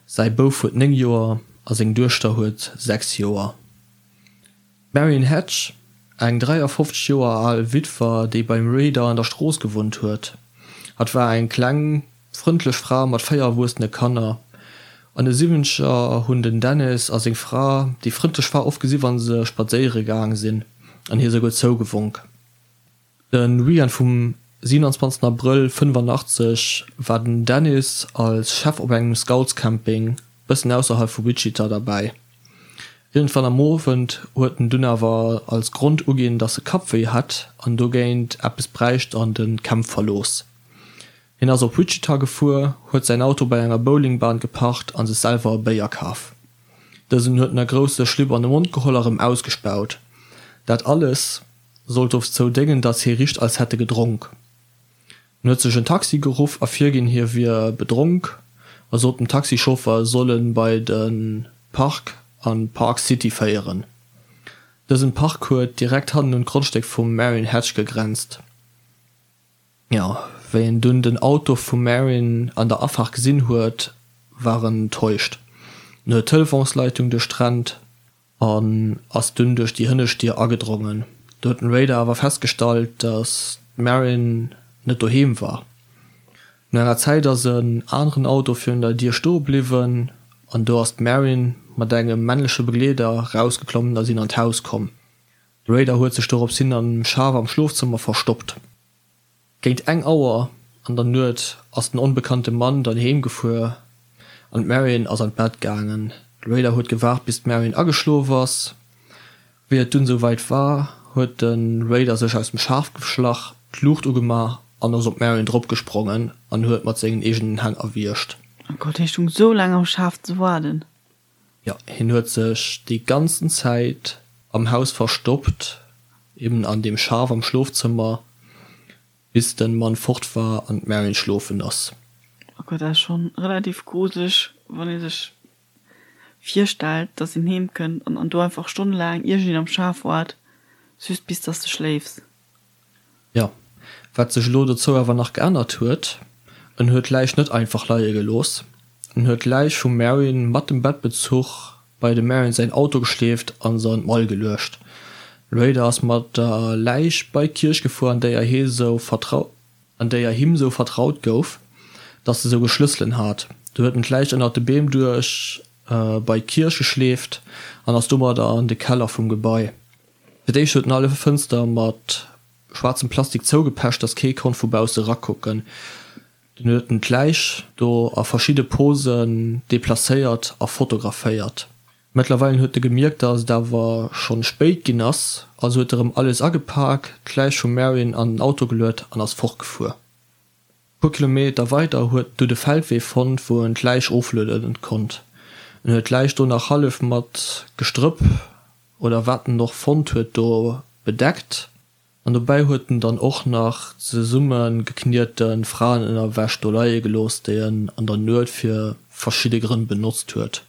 säi Bouf huet 9 Joer a seng Duechter huet 6 Joer. D'Marion Hatch, eng 53 Joer al Witwer, déi beim Rader an der Strooss gewunnt huet. Hatt war eng kleng, frëndlech Fra mat 4 erwuessene Kanner. An de Siwwenzeger hunn den Dennis a seng Fra déi frëndlech Fra oft gesi wa se spadséiere gaang sinn an hir souguer zougewonk. De Weekend vum 27 Abrëll 85 war den Dennis als Chef op engem Scoutscamping bëssen ausserhalb vu Wichita derbäi. Iergendwann am Owend huet en dunn awer als Grond uginn, dass e Kappwéi hätt an dogéint eppes bräicht an de Camp verlooss. Hien ass op Wichita gefuer, huet säin Auto bei enger Bowlingbahn geparkt a sech selwer e Béier kaf. Dësen huet en a grousse Schlipp an de Mond geholl a rëm ausgespaut. Dat alles sollt dozou déngen, datt hie richt als hätt e gedronk. En huet sech en Taxi geruff a virginn, hie wier bedronk a sot dem Taxichauffer, e soll en bei de Park a Park City féieren. Dësen Park huet direkt hannen un d'Grondstéck vum Marion Hatch gegrenzt. Jo, wéi en dunn den Auto vum Marion an der Afaart gesinn huet, war en enttäuscht. En huet d'Telefonsleitung duerchtrennt. An ass dunn duerch déi hënnescht Dier agedrongen. Do huet den Raider awer festgestallt, dass d'Marin net doheem war. No enger Zäit ass en aneren Auto virun der Dier stoe bliwwen an do ass d'Marin mat engem männleche Begleeder rausgeklommen a sinn an d'Haus komm. De Raider huet sech dorops hin am Schaf am Schlofzëmmer verstoppt. Géint eng Auer an der Nuet ass den onbekannte Mann dann heem gefuer an d'Marion ass an d'Bett gaangen. De Raider huet gewaart bis d'Marion ageschlof ass. Wéi et dunn esou wäit war, huet de Raider sech aus dem Schaf geschlach, d'Luucht ugemaach an ass op d'Marion dropgesprongen an huet mat sengen eegenen Hänn erwiergt. Oh Gott, hie stung sou laang am Schaf ze waarden. Jo, hien huet sech déi ganzen Zäit am Haus verstoppt, eben an deem Schaf am Schlofzëmmer, bis den Mann fort war an d'Marion schlofen ass. Oh Gott, dat ass schon relativ gruseleg, wann ee sech virstellt, dass een heem kënnt an do einfach stonnelaang iergendeen am Schaf waart, just bis dass de schléifs. Jo, wat sech elo dozou awer nach geännert huet, en huet d'Läich net einfach leie gelooss. En huet d'Läich vum Marion mat dem Bettbezuch bei dem Marion säin Auto geschleeft an se an d'Mall geluecht. Raider ass mat der Läich bei d'Kierch gefuer, an déier hie sou vertrau an déier him sou vertraut gouf, dass e souguer Schlësselen hat. Do huet en d'Läich ënnert de Beem duerch bei d'Kierch geschleeft an ass domadder an de Keller vum Gebai. Fir d'éischt huet en alle Fënster mat schwaarzem Plastik zougepecht, dass kee konnt vu bausse rakucken. Dunn huet en d'Läich do a verschidde Posen deplacéiert a fotograféiert. Mëttlerweilen huet e gemierkt, dass et awer schonn spéit ginn ass, also huet e rëm alles agepak, d'Läich vum Marion an den Auto geluet an ass fortgefuer. E puer Kilometer weider huet en du de Feldwee fonnt, wou en d'Läich oflueden konnt. En huet d'Läich do nach hallef mat Gestrëpp oder wat en och fonnt huet do bedeckt an dobäi huet en dann och nach zesumme gekniete Fraenënnerwäsch do leie gelooss, déi en an der Nuet fir verschidde Grënn benotzt huet.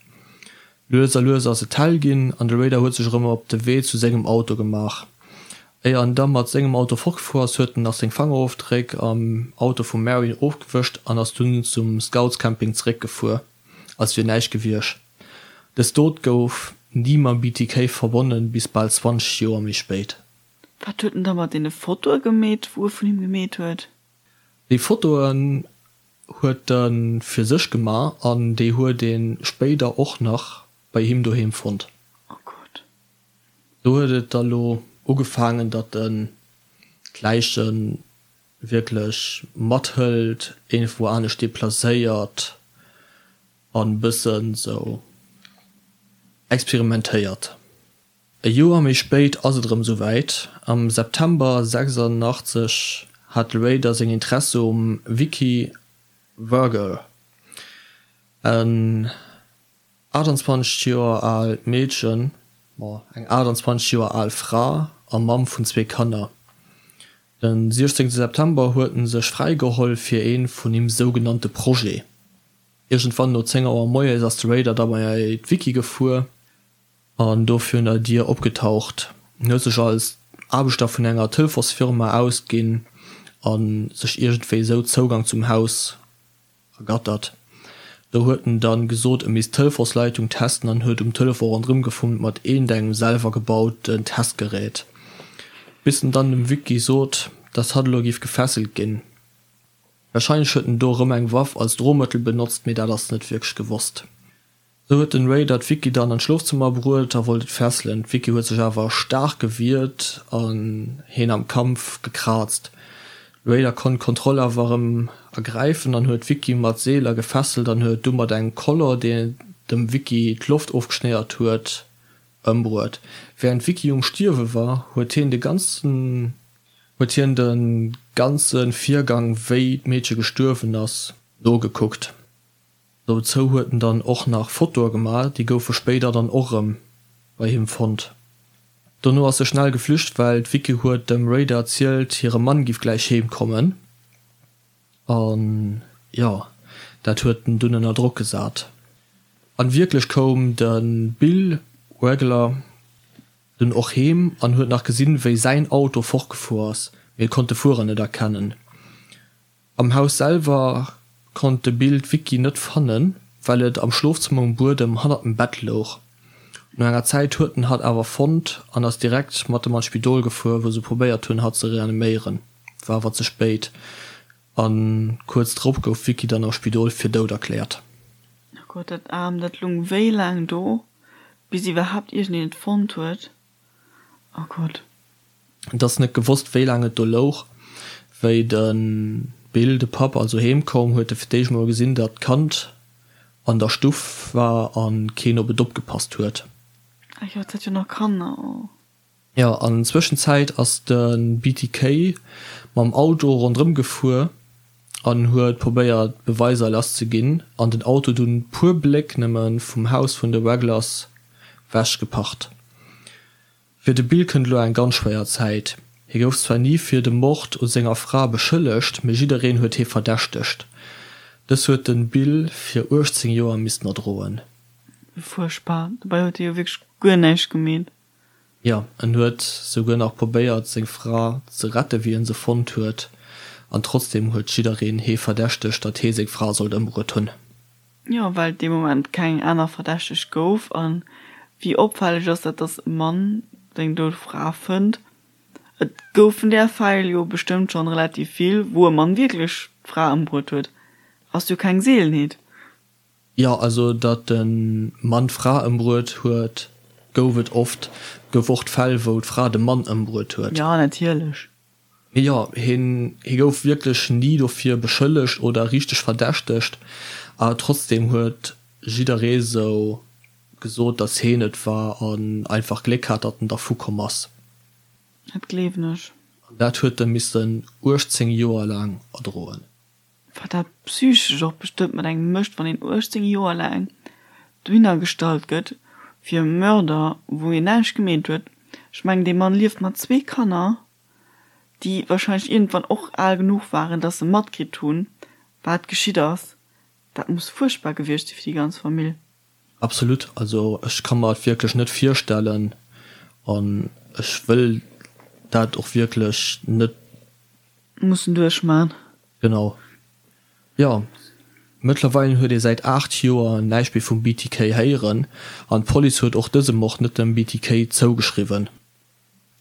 Lues a lues ass et hell ginn an de Raider huet sech erëm op de Wee zu sengem Auto gemaach. Éier en da mat sengem Auto fortgefuer ass, huet en nach seng Fangerofdréck am Auto vum Marion ofgewëscht an ass dunn zum Scoutscamping zeréckgefuer, als wier näischt gewiescht. Dës Dot gouf ni mam BTK verbonnen, bis bal 20 Joer méi spéit. Wat huet en da mat deene Fotoe gemeet, wou e vun him gemeet huet? Déi Fotoen huet e fir sech gemaach an déi huet ee spéider och nach bei him doheem fonnt. Oh Gott. Do huet et da lo ugefaangen, datt en d'Läiche wierklech mathëlt, iergendwou anescht deplacéiert an bëssen sou experimentéiert. E Joer méi spéit ass et erëm sou wäit, Am September 86 hat de Raider seng Interesse um Vicky Vogel, en 28 Joer aalt Meedchen, ma eng 28 Joer al Fra a Mamm vun zwee Kanner. Den 16 September huet en sech fräigeholl fir ee vun him sougenannte Projet. Iergendwann no 10 Auer moies ass de Raider da bei d'Vicky gefuer an do virun der Dier opgetaucht. En huet sech als Aarbechter vun enger Telefonsfirma ausginn a sech iergendwéi esou Zougang zum Haus ergattert. Do huet en dann gesot, e misst d'Telefonsleitung testen an huet um Telefon ronderëm gefummelt mat iergendengem selwer gebauten Testgerät, bis en dann dem Vicky sot, dass hatt elo géif gefesselt ginn. Wahrscheinlech huet en do erëm eng Waff als Drohmëttel benotzt, mee dat ass net wierklech gewosst. Sou huet den Raider d'Vicky dann an d'Schlofzëmmer bruet a wollt et fesselen. D'Vicky huet sech awer staark gewiert an heen am Kampf gekraazt. De Raider konnt d'Kontroll awer erëm ergräifen an huet d'Vicky mat Seeler gefesselt an huet du mat engem Koller, deen dem Vicky d'Loft ofgeschnéiert huet, ëmbruet. Wärend d'Vicky um Stierwe war, huet hien de ganzen huet hien de ganze Virgang, wéi d'Meedche gestuerwen ass, nogekuckt. Dozou huet en dann och nach Fotoe gemaach, déi goufe spéider dann och erëm bei him fonnt. Dono ass e schnell geflücht, well d'Vicky huet dem Raider erzielt, hire Mann giff gläich heem kommen. An jo, dat huet en dunn ënner Drock gesat. An wierklech koum de Bill Wagler dunn och heem an huet nach gesinn, wéi säin Auto fortgefuer ass, mee e konnt de Fuerer net erkennen. Am Haus selwer konnt de Bill d'Vicky net fannen, well et am Schlofzëmmer um Buedem hannert dem Bett louch. No enger Zäit huet en hatt awer fonnt an ass direkt mat em an d'Spidol gefuer, wou se probéiert hunn, hatt ze reaniméieren. War awer ze spéit a kuerz drop gouf d'Vicky dann am Spidol fir dout erkläert. Oh Gott, dat Aarmt, dat lung wéi laang do, bis iwwerhaapt iergendeen et fonnt huet. Oh Gott. Et ass net gewosst, wéi laang et do louch. Wéi de Bill, de Papp, also heem koum, huet e fir d'éischt mol gesinn, datt d'Kand an der Stuff war a keen op et opgepasst huet. Ah jo, et hat jo nach Kanner, oh. Jo, an Zwëschenzäit ass de BTK mam Auto ronderëm gefuer an huet probéiert Beweiser lass ze ginn an den Auto dunn puer Bléck nëmme vum Haus vun de Wagglers wech geparkt. Fir de Bill kënnt elo eng ganz schwéier Zäit. Hie gouf zwar ni fir de Mord u senger Fra beschëllegt, mee jiddereen huet hie verdächtegt. Dës huet de Bill fir 18 Joer missten erdroen. Fuerchtbar, dobäi huet hie jo wierklech guer näischt gemeet. Jo, en huet souguer nach probéiert seng Fra ze rette wéi en se fonnt huet, an trotzdem huet jiddereen hee verdächtegt, datt hee seng Fra sollt ëmbruet hunn. Jo, well et dee Moment keng aner Verdächteg gouf. A wéi opfälleg ass dat, datt e Mann seng dout Fra fënnt? Et goufen där Fäll jo bestëmmt schonn relativ vill, wou e Mann wierklech d'Fra ëmbruet huet. Ass jo keng Seelenheet. Jo, also datt e Mann d'Fra ëmbruet huet, gouf et oft. Et gouf och d'Fäll, wou d'Fra de Mann ëmbruet huet. Jo, natierlech. Mee jo, hien, hie gouf wierklech ni dofir beschëllegt oder richteg verdächtegt, awer trotzdem huet jidderee sou gesot, datt hien et war an einfach Gléck hat, datt en dervu komm ass. Dat gleewen ech. An dat huet e missen 18 Joer laang erdroen. Wat dat psychesch och bestëmmt mat engem mécht, wann een 18 Joer laang dohinner gestallt gëtt fir e Mörder, wou een näischt gemeet huet. Ech mengen, dee Mann lieft mat zwee Kanner, déi wahrscheinlech iergendwann och al genuch waren, dass se matkritt hunn, wat geschitt ass. Dat muss fuerchtbar gewiescht si fir déi ganz Famill. Absolut, also ech ka mer et wierklech net virstellen an ech wëll dat och wierklech net. Mussen duerchman. Genau. Jo, mëttlerweil huet ee säit 8 Joer näischt méi vum BTK héieren an d'Police huet och dëse Mord net dem BTK zougeschriwwen.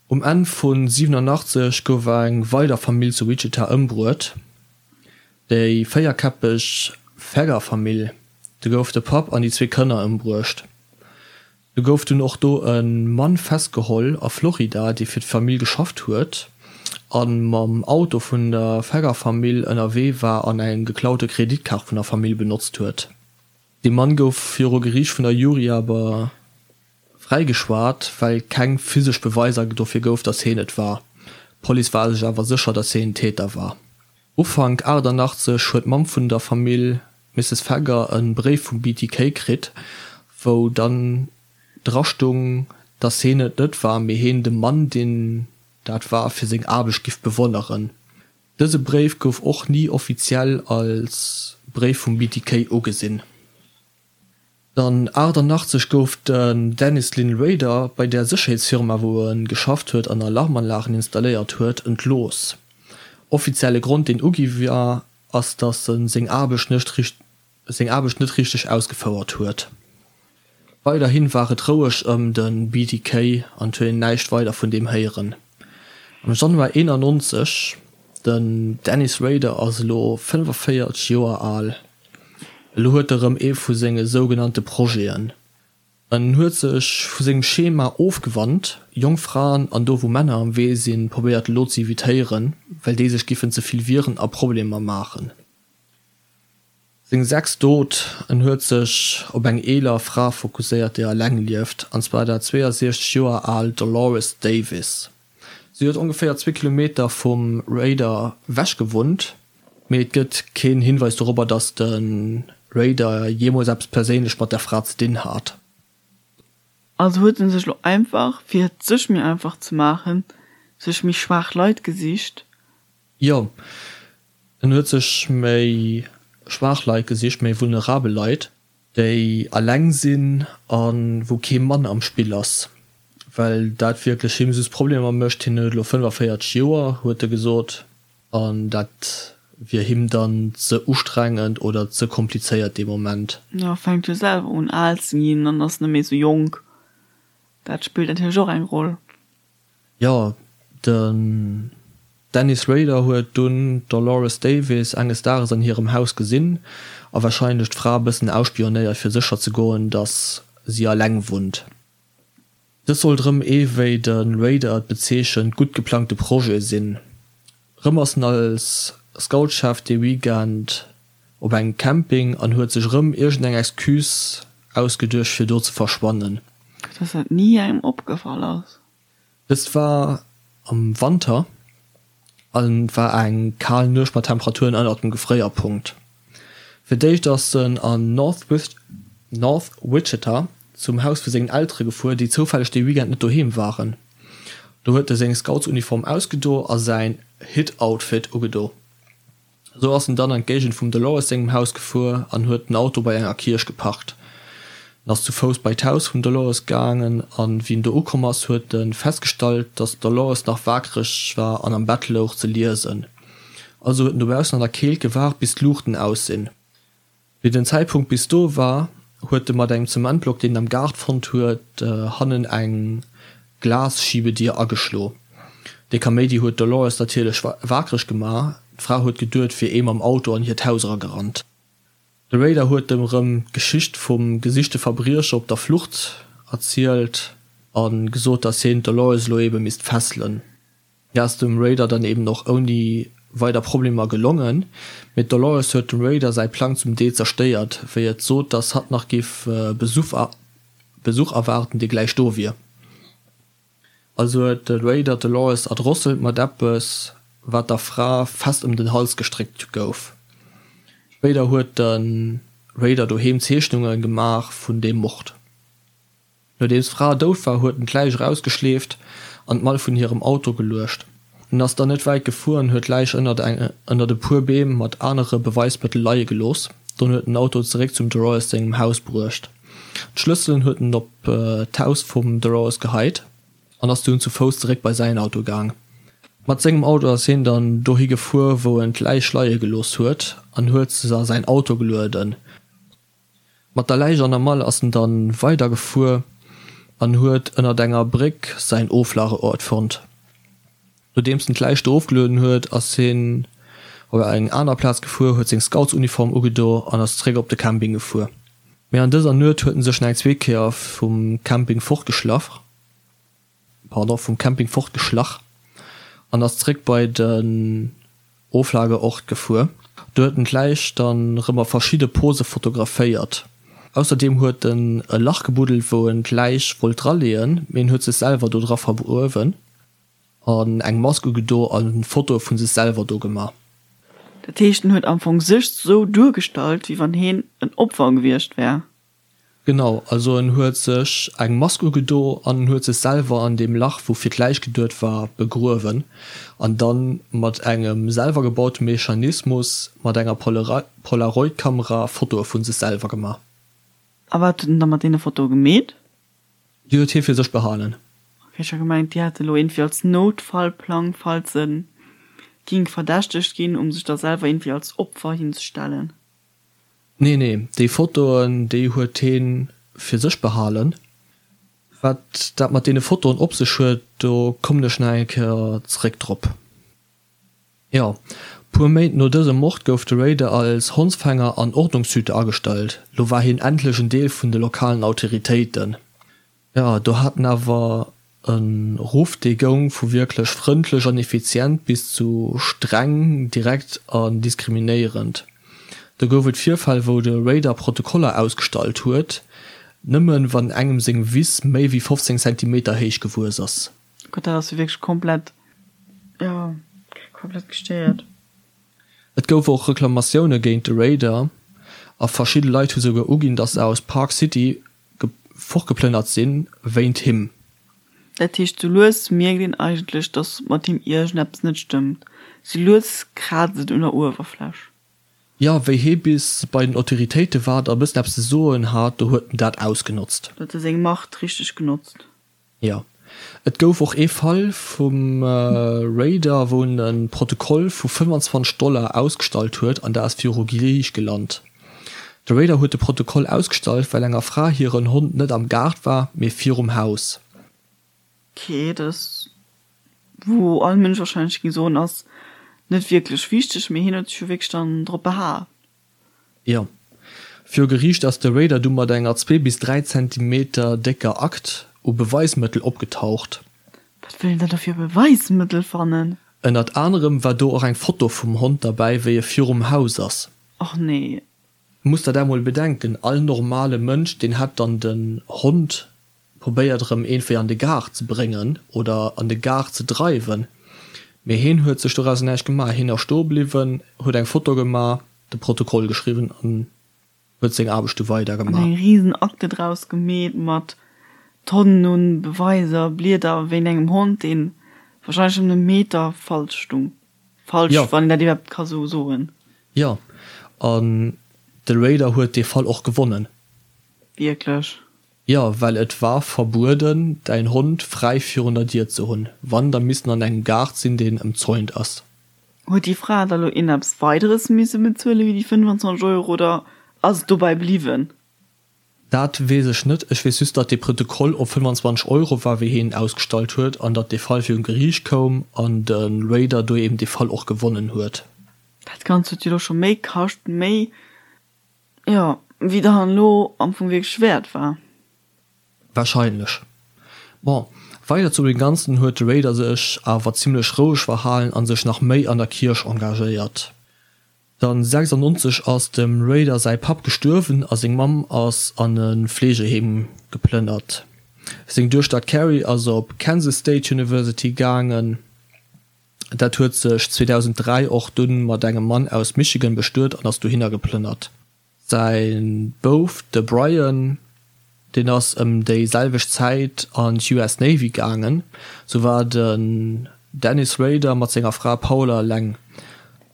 Um Enn vu 87 gouf eng weider Famill zu Wichita ëmbruet, déi véierkäppeg Feger-Famill. Do gouf de Papp an déi zwee Kanner ëmbruecht. Do gouf dunn och do e Mann festgeholl a Florida, dee fir d'Famill geschafft huet a mam Auto vun der Feger-Famill ënnerwee war an eng geklaute Kreditkaart vun der Famill benotzt huet. Dee Mann gouf viru Geriicht vun der Jury awer fräigeschwat, well keng physesch Beweiser dofir gouf, datt hien et war. D'Police war sech awer sécher, datt hien den Täter war. Ufank 88 huet d'Mamm vun der Famill, d'Misses Feger, e Bréif vum BTK kritt, wou dann dra stung, dass heen et net war, mee heen de Mann, deen dat war, fir seng Aarbecht giff bewonneren. Dëse Bréif gouf och ni offiziell als Bréif vum BTK ugesinn. Dann 88 gouf den Dennis Lynn Rader bei der Sécherheetsfirma wou e geschafft huet an Alarmanlagen installéiert huet, entlooss. Offizielle Grond deen ugi war ass datt e seng Aarbecht seng Aarbecht net richteg ausgefouert huet. Weiderhin war et roueg ëm de BTK an et huet een näischt weider vun deem héieren. Am Januar 91, den Dennis Rader ass elo 45 Joer al, elo huet e rëm ee vu senge sougenannte Projeten. En huet sech vu sengem Schema ofgewannt, jonk Fraen an do wou Männer am Wee sinn, probéiert elo ze evitéieren, well déi sech giffen ze vill wieren a Problemer maachen. Seng sechst Dot, En huet sech op eng eeler Fra fokusséiert, déi eleng lieft, an zwar dat 62 Joer al Dolores Davis. Si huet ongeféier zwee Kilometer vum Rader ewech gewunnt, mee et gëtt keen Hinweis dorobber, datt de Rader jeemools eppes perséinlech mat der Fra ze dinn hat. Also huet en sech lo einfach, fir et sech méi einfach ze maachen, sech méi schwaach Leit gesicht. Jo, en huet sech méi schwaach Leit gesicht, méi vulnerabel Leit, déi alleng sinn a wou kee Mann am Spill ass, well dat wierklech him just Problemer mécht. Hien huet elo 45 Joer, huet e gesot, an dat wier him dann ze ustrengend oder ze komplizéiert dee Moment. Jo, fänkt jo selwer un al ze ginn an ass net méi esou jonk. Dat spillt natierlech och eng Roll. Jo, den Dennis Rader huet dunn d'Dolores Davis enges Dages an hirem Haus gesinn a warscheinlech d'Fra e bëssen ausspionéiert fir sécher ze goen, datt si alleng wunnt. Dës sollt rëm ee wéi de Rader et bezeechent gutt geplangte Projet sinn. Rëm ass en als Scoutschef dee Weekend op engem Camping an huet sech rëm iergendeng Excuse ausgeduecht fir do ze verschwannen. Dass dat ni engem opgefall ass. Dëst war am Wanter an et war eng kal Nuecht mat Temperaturen ënnert dem Gefréierpunkt. Fir d'éischt ass en an North Wichita zum Haus vu sengen Eltere gefuer, déi zoufälleg dee Weekend net doheem waren. Do huet e seng Scoutsuniform ausgedo a säin Hit-Outfit ugedo. Esou ass en dann an d'Géigend vum Dolores sengem Haus gefuer an huet den Auto bei enger Kierch geparkt. En ass zu Fouss bei d'Haus vum Dolores gaangen an wéi en do ukomm ass, huet e festgestallt, dass d'Dolores nach waakreg war an am Bett louch ze liesen. Also huet en dobaussen an der Keelt gewaart bis d'Luuchten aus sinn. Wéi den Zäitpunkt bis do war, huet e mat engem Zementblock, deen en am Gaart fonnt huet, hannen eng Glasschiebedier ageschlo. Dee Kaméidi huet d'Dolores natierlech waakreg gemaach. D'Fra huet geduet, wier ee mam Auto an hiert Haus eragerannt. De Rader huet em erëm d'Geschicht vum gesichte Verbriecher op der Flucht erzielt a gesot, datt hien d'Dolores elo ebe misst fesselen. Dat ass dem Raider dann eben och ouni weider Problemer gelongen, mee d'Dolores huet dem Raider säi Plang zum Deel zerstéiert, wéi et sot, dass hatt nach giff Besuch erwaarden, dee gläich do wier. Also huet de Raider d'Dolores erdrosselt mat eppes, wat der Fra fest ëm den Hals gestréckt gouf. Spéider huet de Raider doheem Zeechnunge gemaach vun deem Mord. Nodeems d'Fra dout war, huet en d'Läich erausgeschleeft an d'Mall vun hirem Auto geluecht. En ass dann net wäit gefuer an huet d'Läich ënnert ënnert e puer Beem mat anere Beweismëttel leie gelooss. Dunn huet en den Auto zeréck zum Dolores sengem Haus bruecht. D'Schlësselen huet en op d'Haus vum Dolores geheit an ass dunn zu Fouss zeréck bei säin Auto gaang. Mat sengem Auto ass hien dann dohi gefuer, wou en d'Läich leie gelooss huet an huet se a säin Auto gelueden. Mat der Läich an der Mall ass en dann weider gefuer an huet ënnert enger Bréck säin Oflageort fonnt. Nodeems en d'Läich do ofgelueden huet, ass hien op eng aner Plaz gefuer, huet seng Scoutsuniform ugedo an ass zeréck op de Camping gefuer. Mee an dëser Nuet huet en sech nach eng zweet Kéier vum Camping fortgeschlach. pardon, vum Camping fortgeschlach an ass zréck bei den Oflageort gefuer. Do huet en d'Läich dann rëm a verschidde Pose fotograféiert. Ausserdeem huet en e Lach gebuddelt wou en d'Läich wollt draleeën, mee en huet sech selwer do dra vergruewen an eng Mask ugedo a Fotoe vu sech selwer do gemaach. Dat heescht en huet am Fong sech sou duergestallt wéi wann heen en Opfer gewiescht wär? Genau, also en huet sech eng Mask ugedo an en huet sech selwer an deem Lach, wou fir d'Läich geduet war, begruewen an dann mat engem selwer gebaute Mechanismus mat enger Polaroid-Kamera Fotoe vu sech selwer gemaach. A wat huet en da mat deene Fotoe gemeet? Déi huet hie fir sech behalen. Ok, ech hat gemengt, déi hätt e lo iergendwéi als Noutfallplang, falls e ging verdächtegt ginn, um sech da selwer iergendwéi als Opfer hinzestellen. Nee, nee, déi Fotoen, déi huet heen fir sech behalen. Wat dat mat deene Fotoen op sech huet, do kommen ech nach eng Kéier zeréck drop. Jo, puer Méint no dësem Mord gouf de Rader als Hondsfänger an Ordnungshüter agestallt. Lo war hien endlech en Deel vun de lokalen Autoritéiten. Jo, do hat en awer e Ruff, dee goung vu wierklech frëndlech an effizient bis zu streng, direkt an diskriminéierend. Do gouf et Virfäll, wou de Rader Protokoller ausgestallt huet, nëmmen wann engem seng Wiss méi wéi 15 Zentimeter héich gewuess ass. Gott, dat ass jo wierklech komplett, jo, komplett gestéiert. Et gouf och Reklamatioune géint de Rader a verschidde Leit hu souguer uginn, datt se aus Park City fortgeplënnert sinn wéint him. Dat heescht, sou lues mierkt een eigentlech, dass mat him iergendeppes net stëmmt. Sou lues kraazt et un der Uewerfläch. Jo, wéi hie bis bei den Autoritéite war a bëssen eppes ze soen hat, do huet en dat ausgenotzt. Do huet e seng Macht richteg genotzt. Jo. Et gouf och ee Fall vum Raider, wou en e Protokoll vu 25 Dollar ausgestallt huet an dat ass viru Geriicht gelant. De Raider huet de Protokoll ausgestallt, well enger Fra hiren Hond net am Gaart war, mee virum Haus. Ok, dat ass, wou all Mënsch warscheinlech géing soen, ass net wierklech wichteg, mee hien huet sech jo wierklech dann drop behaapt. Jo. Viru Geriicht ass de Raider du mat enger zwee bis 3 Zentimeter décker Akt u Beweismëttel opgetaucht. Wat wëll en da do fir Beweismëttel fannen? Ënnert anerem war do och eng Foto vum Hond derbäi, wéi e virum Haus ass. Och nee. Muss der dat mol bedenken, all normale Mënsch, deen hätt dann den Hond. probéiert erëm iergendwéi an de Gaart ze bréngen oder an de Gaart ze dreiwen. Mee heen huet sech dorauser näischt gemaach. Heen ass stoe bliwwen, huet eng Foto gemaach, de Protokoll geschriwwen an huet seng Aarbecht du weider gemaach. An eng riesen Akte draus gemeet mat Tonnen un Beweiser, Blieder wéint engem Hond, deen wahrscheinlech ëm e Meter falsch stung. Falsch, wann een dat iwwerhaapt ka sou soen. Jo, an de Rader huet dee Fall och gewonnen. Wierklech? Jo, well et war verbueden, däin Hond fräi virun der Dier ze hunn. Wann, da misst en an engem Gaart sinn, deen ëmzäunt ass. Huet déi Fra da lo ieneppes Weideres misse bezuele wéi déi 25 Euro oder ass et dobäi bliwwen? Dat weess ech net. Ech weess just, datt dee Protokoll op 25 Euro war, wéi hien en ausgestallt huet, an datt dee Fall virun Geriicht koum an de Rader do eben dee Fall och gewonnen huet. Dat Ganzt huet jo lo scho méi kascht, méi, jo, wéi dann elo am Fong wierklech wäert war. Wahrscheinlech. Bon, weider zu dem Ganzen huet de Rader sech awer zimlech roueg verhalen an sech nach méi an der Kierch engagéiert. Dann 96 ass dem Rader säi Papp gestuerwen a seng Mamm ass an e Fleegeheem geplënnert. Seng Duechter d'Carrie ass op Kansas State University gaangen. Dat huet sech 2003 och dunn mat engem Mann aus Michigan bestuet an ass dohinner geplënnert. Säi Bouf, de Brian, deen ass ëm déi selwecht Zäit an d'US Navy gaangen. Sou war den Dennis Rader mat senger Fra Paula eleng.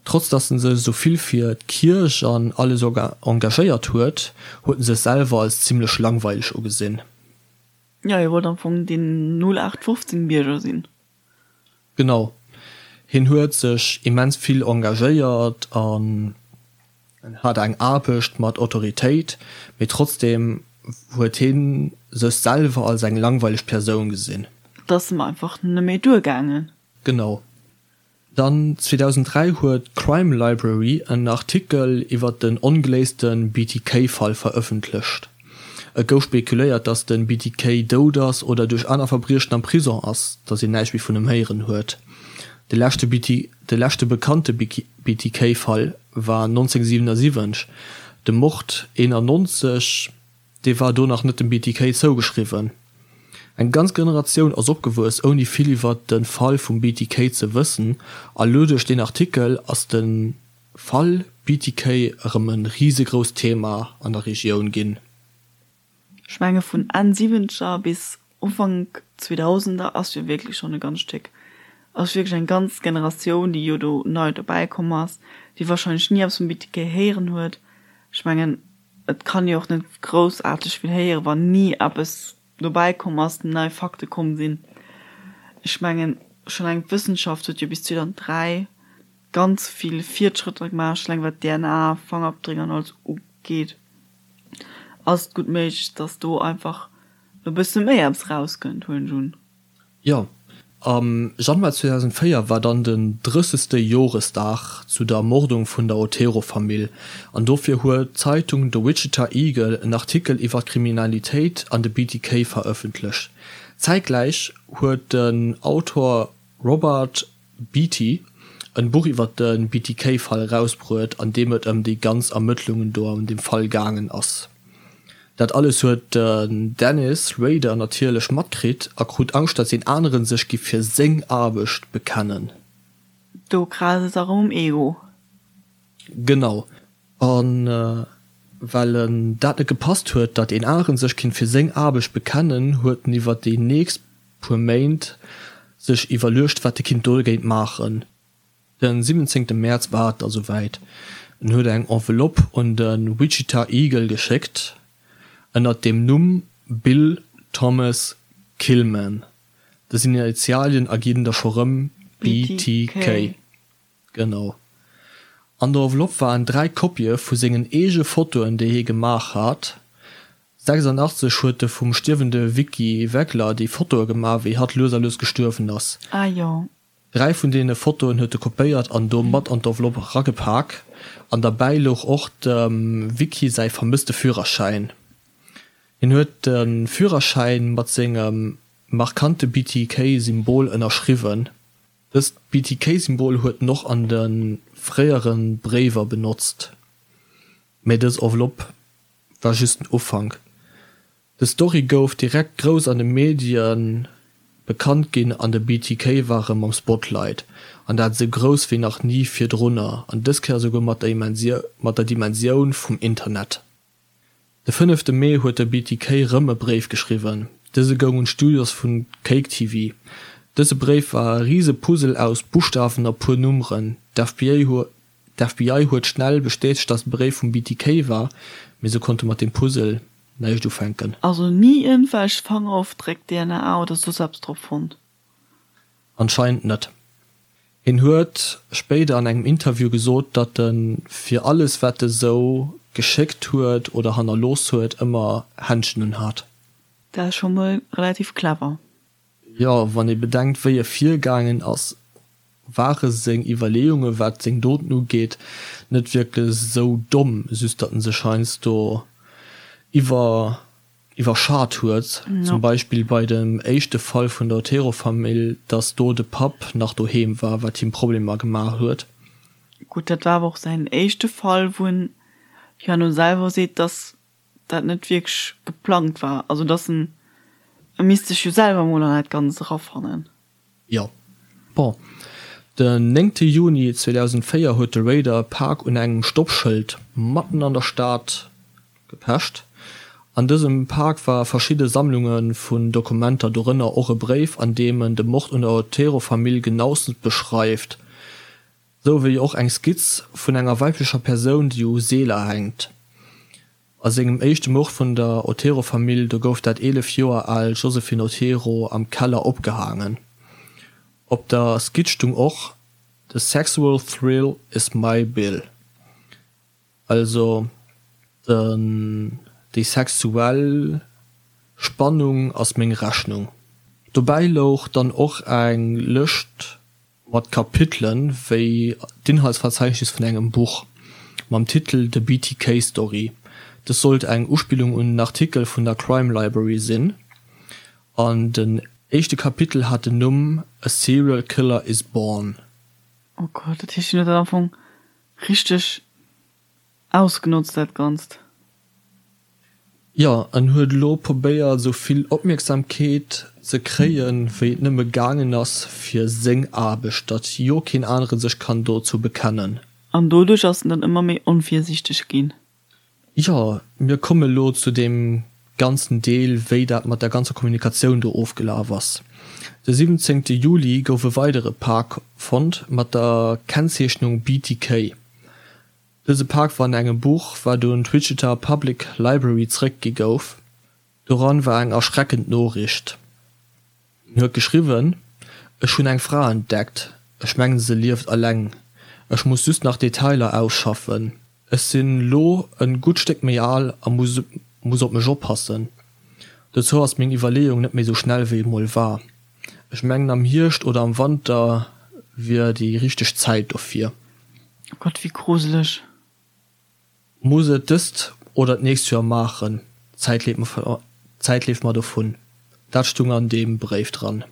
Trotz datt en sech esou vill fir d'Kierch an alles engagéiert huet, huet en sech selwer als zimmlech langweileg ugesinn. Jo, hie wollt am Fong deen 0815 Bierger sinn. Genau. Hien huet sech immens vill engagéiert an hat eng Aarbecht mat Autoritéit, mee trotzdeem huet hien sech selwer als eng langweileg Persoun gesinn. Et ass em einfach neméi duergaangen. Genau. Dann 2003 huet d'Crime Library en Artikel iwwer den ongeléiste BTK-Fall verëffentlecht. Et gouf spekuléiert, datt de BTK dout ass oder duerch aner Verbriechen am Prison ass, datt een näischt méi vun em héieren huet. De leschte De leschte bekannte BTK-Fall war 1977, de Mord 91, dee war do nach net dem BTK zougeschriwwen. Eng ganz Generatioun ass opgewuess ouni vill iwwer de Fall vum BTK ze wëssen a lo duerch deen Artikel ass de Fall BTK erëm e risegrousst Thema an der Regioun ginn. Ech menge vun Enn Siwwenzeger bis Ufank Zweedausender ass jo wierklech schonn e ganz Stéck, ass wierklech eng ganz Generatioun déi jo do nei dobäi komm ass, déi wahrscheinlech ni eppes vum BTK héieren huet. Ech mengen et kann ee och net groussaarteg vill héieren, wann ni eppes dobäi komm ass, nei Fakte komm sinn. Ech mengen schonn eleng d'Wëssenschaft huet jo bis 2003 ganz vill Fiertschrëtter gemaach, schonn eleng wat DNA, Fangerabdréck an alles ugeet, ass et gutt méiglech, dass do einfach e bësse méi eppes rauskënnt, huelen ech un. Jo, am Januar 2004 war dann den drëssegste Joresdag zu der Ermordung vun der Otero-Famill an dofir huet d'Zeitung The Wichita Eagle en Artikel iwwer d'Kriminalitéit an de BTK verëffentlecht. Zäitgläich huet den Autor Robert Beatty en Buch iwwer de BTK-Fall erausbruet, an deem et ëm déi ganz Ermëttlungen do an deem Fall gaangen ass. Dat alles huet den Dennis Rader natierlech matkritt a krut Angscht, datt een aneren sech giff fir seng Aarbecht bekennen. Do krazt et erëm um Ego. Genau. A well en dat net gepasst huet, datt een aneren sech kinnt fir seng Aarbecht bekennen, huet en iwwer déi nächst puer Méint sech iwwerluecht, wat e kinnt dogéint maachen. Den 17 Mäerz war et da souwäit, en huet eng Enveloppe un de Wichita Eagle geschéckt, ënnert dem Numm Bill Thomas Killman. Dës Initialien erginn da scho rëm BTK. Genau. An der Enveloppe waren 3 Kopië vu sengen eege Fotoen, déi hie gemaach hat. 86 huet e vum stierwende Vicky Weggler déi Fotoe gemaach, wéi hatt lues a lues gestuerwen ass. Ah jo. 3 vun deene Fotoen huet e kopéiert an do mat an d'Enveloppe eragepak. An derbäi louch och dem Vicky säi vermësste Führerschäin. Hien huet de Führerschäin mat sengem markante BTK-Symbol ënnerschriwwen. Dëst BTK-Symbol huet en och an de fréiere Bréiwer benotzt, mä dës Enveloppe war just den Ufank. Des Story gouf direkt grouss an de Medien bekannt ginn an de BTK war rëm am Spotlight, an dat esou grouss wéi nach ni virdrunner an dës Kéier esouguer mat der Dimensioun vum Internet. De fënnefte Mee huet de BTK rëm e Bréif geschriwwen. Dëse goung un d'Studios vun Cake TV. Dëse Bréif war e rise Puzzle aus Buschtawen a puer Nummeren. D'FBI huet schnell bestätegt, datt de Bréif vum BTK war, mee se konnte mat deem Puzzle näischt ufänken. Also ni iergendwelch Fangerofdréck, DNA oder soss eppes drop fonnt? Anscheinend net. Hien huet spéider an engem Interview gesot, datt e fir alles wat e sou geschéckt huet oder hannerlooss huet ëmmer Händschen un hat. Dat ass scho mol relativ clever. Jo, wann ee bedenkt wéi e virgaangen ass, ware seng Iwwerleeunge wat seng Doten ugeet net wierklech sou domm, just datt en sech heiansdo iwwer iwwerschat huet, zum Beispill bei dem éischte Fall vun der Otero-Famill, dass do de Papp nach doheem war, wat him Problemer gemaach huet. Gutt, dat war awer och säin éischte Fall, wou en jo herno selwer seet, dass dat net wierklech geplangt war, also dass en, e misst sech jo selwer emol an dat Ganzt erafannen. Jo. Bon, den néngte Juni 2004 huet de Raider e Pak un engem Stoppschëld matten an der Stad gepecht. An dësem Pak ware verschidde Sammlunge vun Dokumenter, dorënner och e Bréif, an deem en de Mord un der Otero-Famill genauestens beschreift, sou wéi och eng Skizz vun enger weiblecher Persoun, déi u Seeler hänkt. A sengem éischte Mord vun der Otero-Famill, do gouf dat 11 Joer al Josephine Otero am Keller opgehaangen. Op der Skizz stung och, The sexual thrill is my bill, also den déi sexuell Spannung ass meng Rechnung. Dobäi louch dann och eng Lëscht Mat Kapitelen wéi d'Inhaltsverzeichnis vun engem Buch mam Titel The BTK Story. Dës sollt eng Uspillung un en Artikel vun der Crime Library sinn an den éischte Kapitel hat den Numm A Serial Killer is Born. Oh Gott, dat heescht, hien huet dat am Fong richteg Ausgenotzt dat Ganzt. Jo, en huet elo probéiert esou vill Opmierksamkeet ze kréien wéi et nëmme gaangen ass fir seng Aarbecht, datt jo keen anere sech kann dozou bekennen. An doduerch ass en dann ëmmer méi onvirsiichteg ginn. Jo, mir komme elo zu deem ganzen Deel wéi dat mat der ganzer Kommunikatioun do ofgelaf ass. De 17 Juli gouf e weidere Pak fonnt mat der Kennzeechnung BTK. Dëse Pak war an engem Buch, wat un d'Wichita Public Library zeréckgi gouf. Doran war eng erschreckend Noriicht. En huet geschriwwen, Ech hunn eng Fra entdeckt. Ech mengen se lieft eleng. Ech muss just nach Detailer ausschaffen. Ech sinn lo en gutt Stéck méi al a muss muss op mech oppassen. Dozou ass meng Iwwerleeung net méi sou schnell wéi et mol war. Ech mengen am Hierscht oder am Wanter wier déi richteg Zäit dofir. Oh Gott, wéi gruseleg. Muss et dëst oder d'nächst Joer maachen, d'Zäit leeft mer dovun. Dat stung an deem Bréif dran.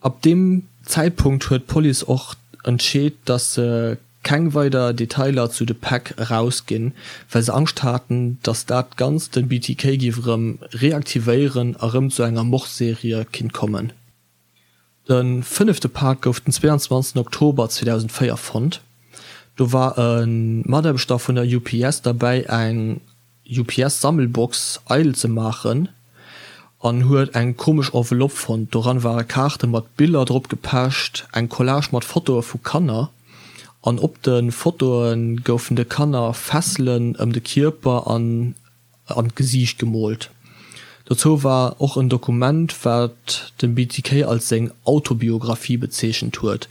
Ab deem Zäitpunkt huet d'Police och entscheet, datt se keng weider Detailer zu de Päck erausginn, well se Angscht haten, datt dat Ganzt den BTK géif erëm reaktivéieren a rëm zu enger Mordserie kinnt kommen. De fënnefte Pak gouf den 22 Oktober 2004 fonnt. Do war e Mataarbechter vun der UPS derbäi eng UPS-Sammelbox eidel ze maachen an huet eng komesch Enveloppe fonnt. Doran ware Kaarte mat Biller drop gepecht, eng Collage mat Fotoe vu Kanner an op de Fotoe goufen de Kanner Fesselen ëm de Kierper an an d'Gesiicht gemoolt. Dozou war och en Dokument, wat de BTK als seng Autobiographie bezeechent huet.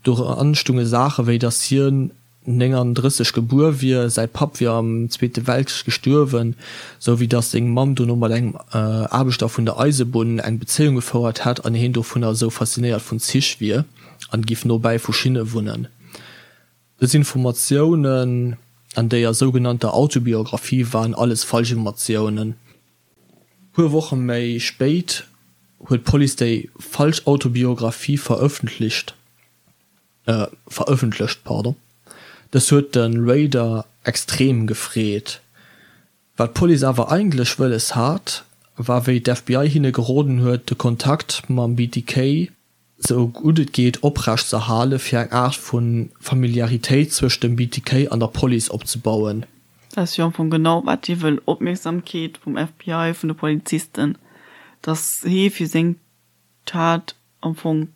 Doran stunge Saache wéi, datt hien 39 gebuer wier, säi Papp wier am Zweete Weltkrich gestuerwen, sou wéi datt seng Mamm dono mat engem Aarbechter vun der Eisebunn eng Bezéiung gefouert hätt an hien dovunner esou faszinéiert vun Zich wier an giff nobäi vu Schinne wunnen. Dës Informatiounen an déier sougenannter Autobiographie waren alles Falschinformatiounen. Puer Woche méi spéit huet d'Police déi falsch Autobiographie verëffentlicht verëffentlecht. Dës huet de Rader extrem gefreet. Wat d'Police awer eigentlech wëlles hat. war wéi d'FBI hinne geroden huet, de Kontakt mam BTK sou gutt et geet oprecht z'erhale fir eng Aart vu Familiaritéit zwëscht dem BTK an der Police opzebauen. Dat ass jo am Fong genau wat hie wëll, Opmierksamkeet vum FBI, vun de Polizisten, datt hie fir seng Tat am Fong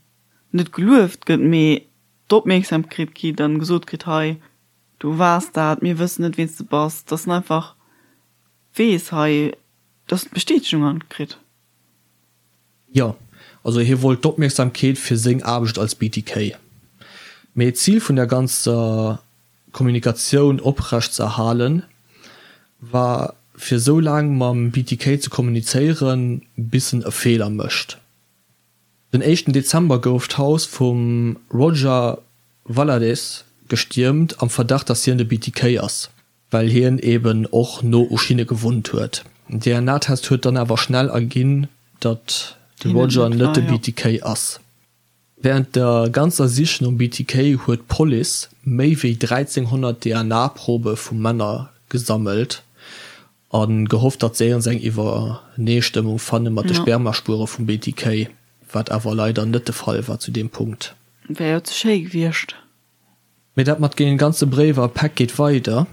net gelueft gëtt, mee d'Opmierksamkeet kritt an gesot kritt, hei du waars dat, mir wëssen net ween s de bass, datt en einfach weess hei, datt en d'Bestätegung an kritt. Jo, also hie wollt d'Opmierksamkeet fir seng Aarbecht als BTK. Mee d'Zil vun der ganzer Kommunikatioun oprecht ze erhalen, war fir sou laang mam BTK ze kommunizéieren, bis en e Feeler mécht. Den éischten Dezember gouf d'Haus vum Roger Valadez gestiermt, am Verdacht, datt hien de BTK ass. Well hien eben och no u Schinne gewunnt huet. Den DNA-Test huet dann awer schnell erginn, datt de Roger net de BTK ass. Wärend der ganzer Sich nom BTK huet d'Police méi wéi 1.300 DNA-Probe vu Männer gesammelt a gehofft, datt se iergends eng Iwwereneestëmmung fanne mat de Spermaspuere vum BTK, wat awer leider net de Fall war zu deem Punkt. Wär jo ze schéi gewiescht. Mee dat mat den ganze Bréiwer a Päck geet weider.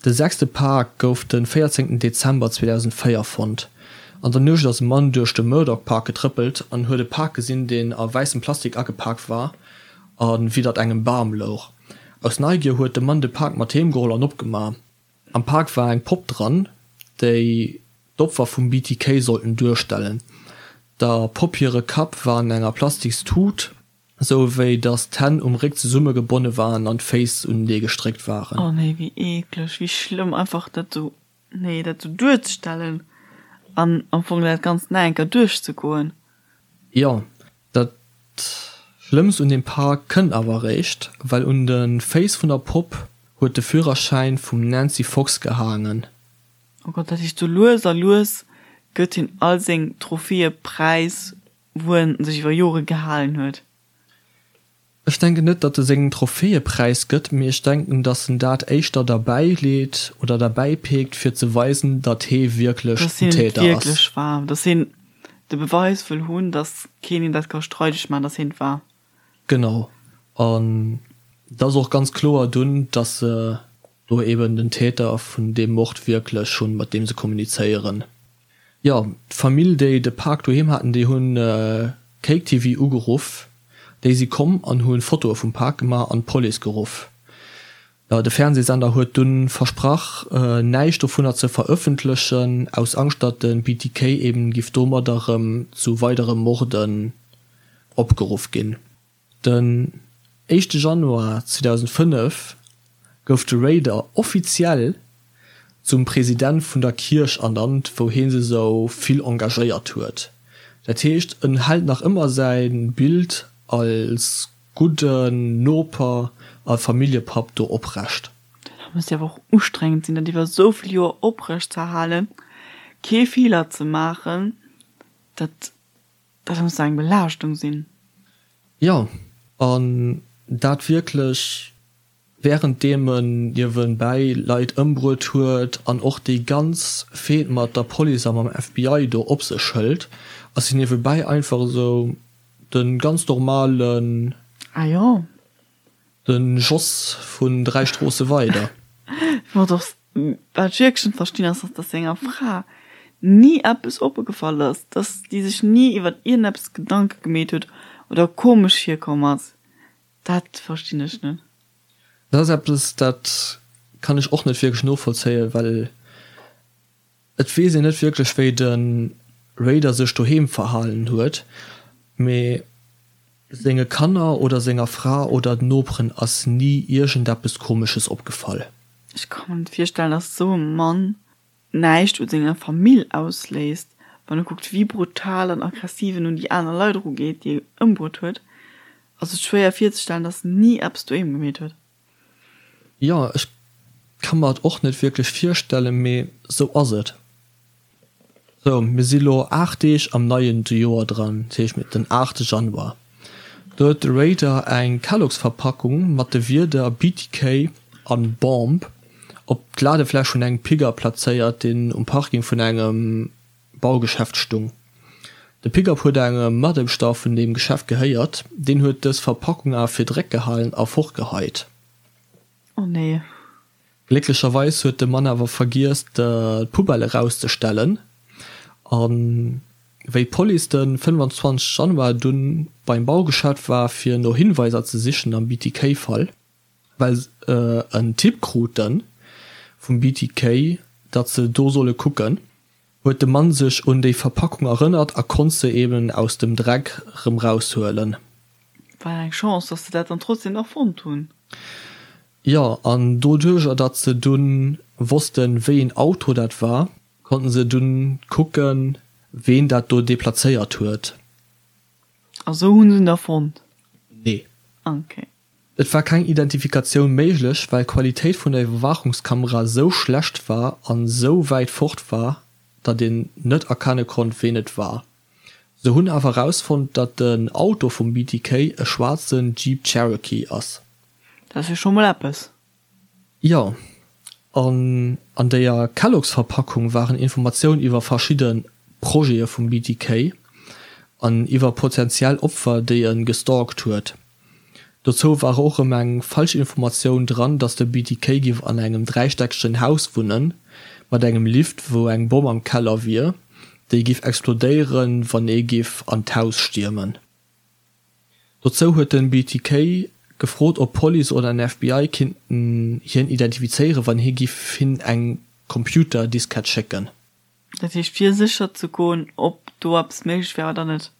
De sechste Pak gouf de 14 Dezember 2004 fonnt. An der Nuecht ass e Mann duerch de Murdoch Park getrëppelt an huet e Pak gesinn, deen a wäissem Plastik agepak war a widdert engem Bam louch. Aus Neigier huet de Mann de Pak mat heem geholl an opgemaach. Am Pak war eng Popp dran, déi d'Opfer vum BTK sollten duerstellen. Der Popp hire Kapp war an enger plastiks Tut. Sou wéi dass d'Hänn um Réck zesumme gebonne waren an d'Féiss unenee gestréckt waren. Oh nee, wéi eekleg, wéi schlëmm, einfach dat sou, nee, dat sou duerzestellen an am Fong dat Ganzt nach eng Kéier duerchzegoen. Jo, dat Schlëmmst un deem Pak kënnt awer eréischt, well un de Féiss vun der Popp huet de Führerschäin vum Nancy Fox gehaangen. Oh Gott, dat heescht, sou lues a lues gëtt hien all seng Trophäe präis wou en sech iwwer Jore gehalen huet. Ech denken net, datt e seng Trophäe präis gëtt, mee ech denken, datt en dat éischter derbäi leet oder derbäi peekt, fir ze weisen, datt hee wierklech den Täter ass. Datt hien et wierklech war, datt hien de Beweis wëll hunn, datt keen him dat ka streideg maachen, datt hien et war. Genau. An et ass och ganz kloer dunn, datt se do eben den Täter vun deem Mord wierklech hunn, mat deem se kommunizéieren. Jo, d'Famill déi de Pak doheem haten, déi hunn Cake TV ugeruff. Déi si komm an hu Fotoe vum Pak gemaach an d'Police geruff. De Fernsehsender huet dunn versprach näischt dovunner ze verëffentlechen, aus Angscht datt de BTK eben giff domadder rëm zu weidere Morden opgeruff ginn. Den éischte Januar 2005 gouf de Rader offiziell zum President vun der Kierch ernannt, wou hie sech esou vill engagéiert huet. Dat heescht, en hält nach ëmmer säi Bild als gudden Noper a Familljepapp do oprecht. Dat muss jo awer och ustrengend sinn, dat iwwer esou vill Joer oprecht ze erhalen, kee Feeler ze maachen. Dat Dat muss eng Belaaschtung sinn. Jo, an dat wierklech wärenddeem en niewenbäi Leit ëmbruet huet an och déi ganz Fehd mat der Police a mam FBI do op sech hëlt, ass hien niewebäi einfach esou de ganz normalen. Ah jo. Den Jos vun 3 Stroosse weider. Wat och, wat ech wierklech net verstinn ass, dass senger Fra ni eppes opgefall ass, dass déi sech ni iwwert iergendeppes Gedanke gemeet huet oder komesch virkomm ass. Dat verstinn ech net. Dat ass eppes, dat kann ech och net wierklech novollzéien, well Et weess een net wierklech wéi de Raider sech doheem verhalen huet, mee senge Kanner oder senger Fra oder den Noperen ass ni iergendeppes komesches opgefall. Ech ka mer net virstellen, dass esou e Mann näischt u senger Famill ausléist, wann e kuckt wéi brutal an aggressiv en un déi aner Leit erugeet, déi e ëmbruet huet. Ass et schwéier virzestellen, dass en ni eppes doheem gemeet huet. Jo, ech ka mer et och net wierklech virstellen, mee sou ass et. Sou, mir si lo 8 Deeg am neien Joer dran, dat heescht den 8 Januar. Do huet de Raider eng Kellogg's-Verpackung mat de Wierder BTK an Bomb op d'Ladefläch vun engem Pigger plazéiert, deen um Parking vun engem. Baugeschäft stung. De Pickup huet engem Mataarbechter vun deem Geschäft gehéiert, deen huet dës Verpackung awer fir Dreck gehalen a fortgeheit. Oh nee. Glécklecherweis huet de Mann awer vergiess d'Poubelle erauszestellen a wéi d'Police de 25 Januar dunn beim Baugeschäft war fir no Hinweiser ze sichen am BTK-Fall, well se en Tipp krute vum BTK, datt se do solle kucken, huet de Mann sech un déi Verpackung erënnert a konnt se eben aus dem Dreck rëm raushuelen. War eng Chance, dass se dat dann trotzdem nach fonnt hunn. Jo, an doduercher datt se dunn wossten, wéi een Auto dat war, konnten se dunn kucken, ween dat do deplazéiert huet. A sou hunn se en da fonnt? Nee. Ok. Et war keng Identifikatioun méiglech, well d'Qualitéit vun der Iwwerwaachungskamera sou schlecht war an sou wäit fort war, datt een net erkenne konnt, ween et war. Se hunn awer erausfonnt, datt den Auto vum BTK e schwaarzen Jeep Cherokee ass. Dat ass jo scho mol eppes. Jo, an an déier Kellogg's-Verpackung waren Informatioun iwwer verschidde Projete vum BTK an iwwer potentiell Opfer, déi e gestalkt huet. Dozou war och erëm eng falsch Informatioun dran, dass de BTK giff an engem dräistäckegen Haus wunnen, mat engem Lift, wou eng Bomm am Keller wier, déi giff explodéieren, wann ee giff an d'Haus stiermen. Dozou huet den BTK gefrot, ob d'Police oder den FBI kinnten hien identifizéieren, wann hie giff hinn eng Computerdiskett schécken. Dat heescht fir sécher ze goen, ob do eppes méiglech wär oder net?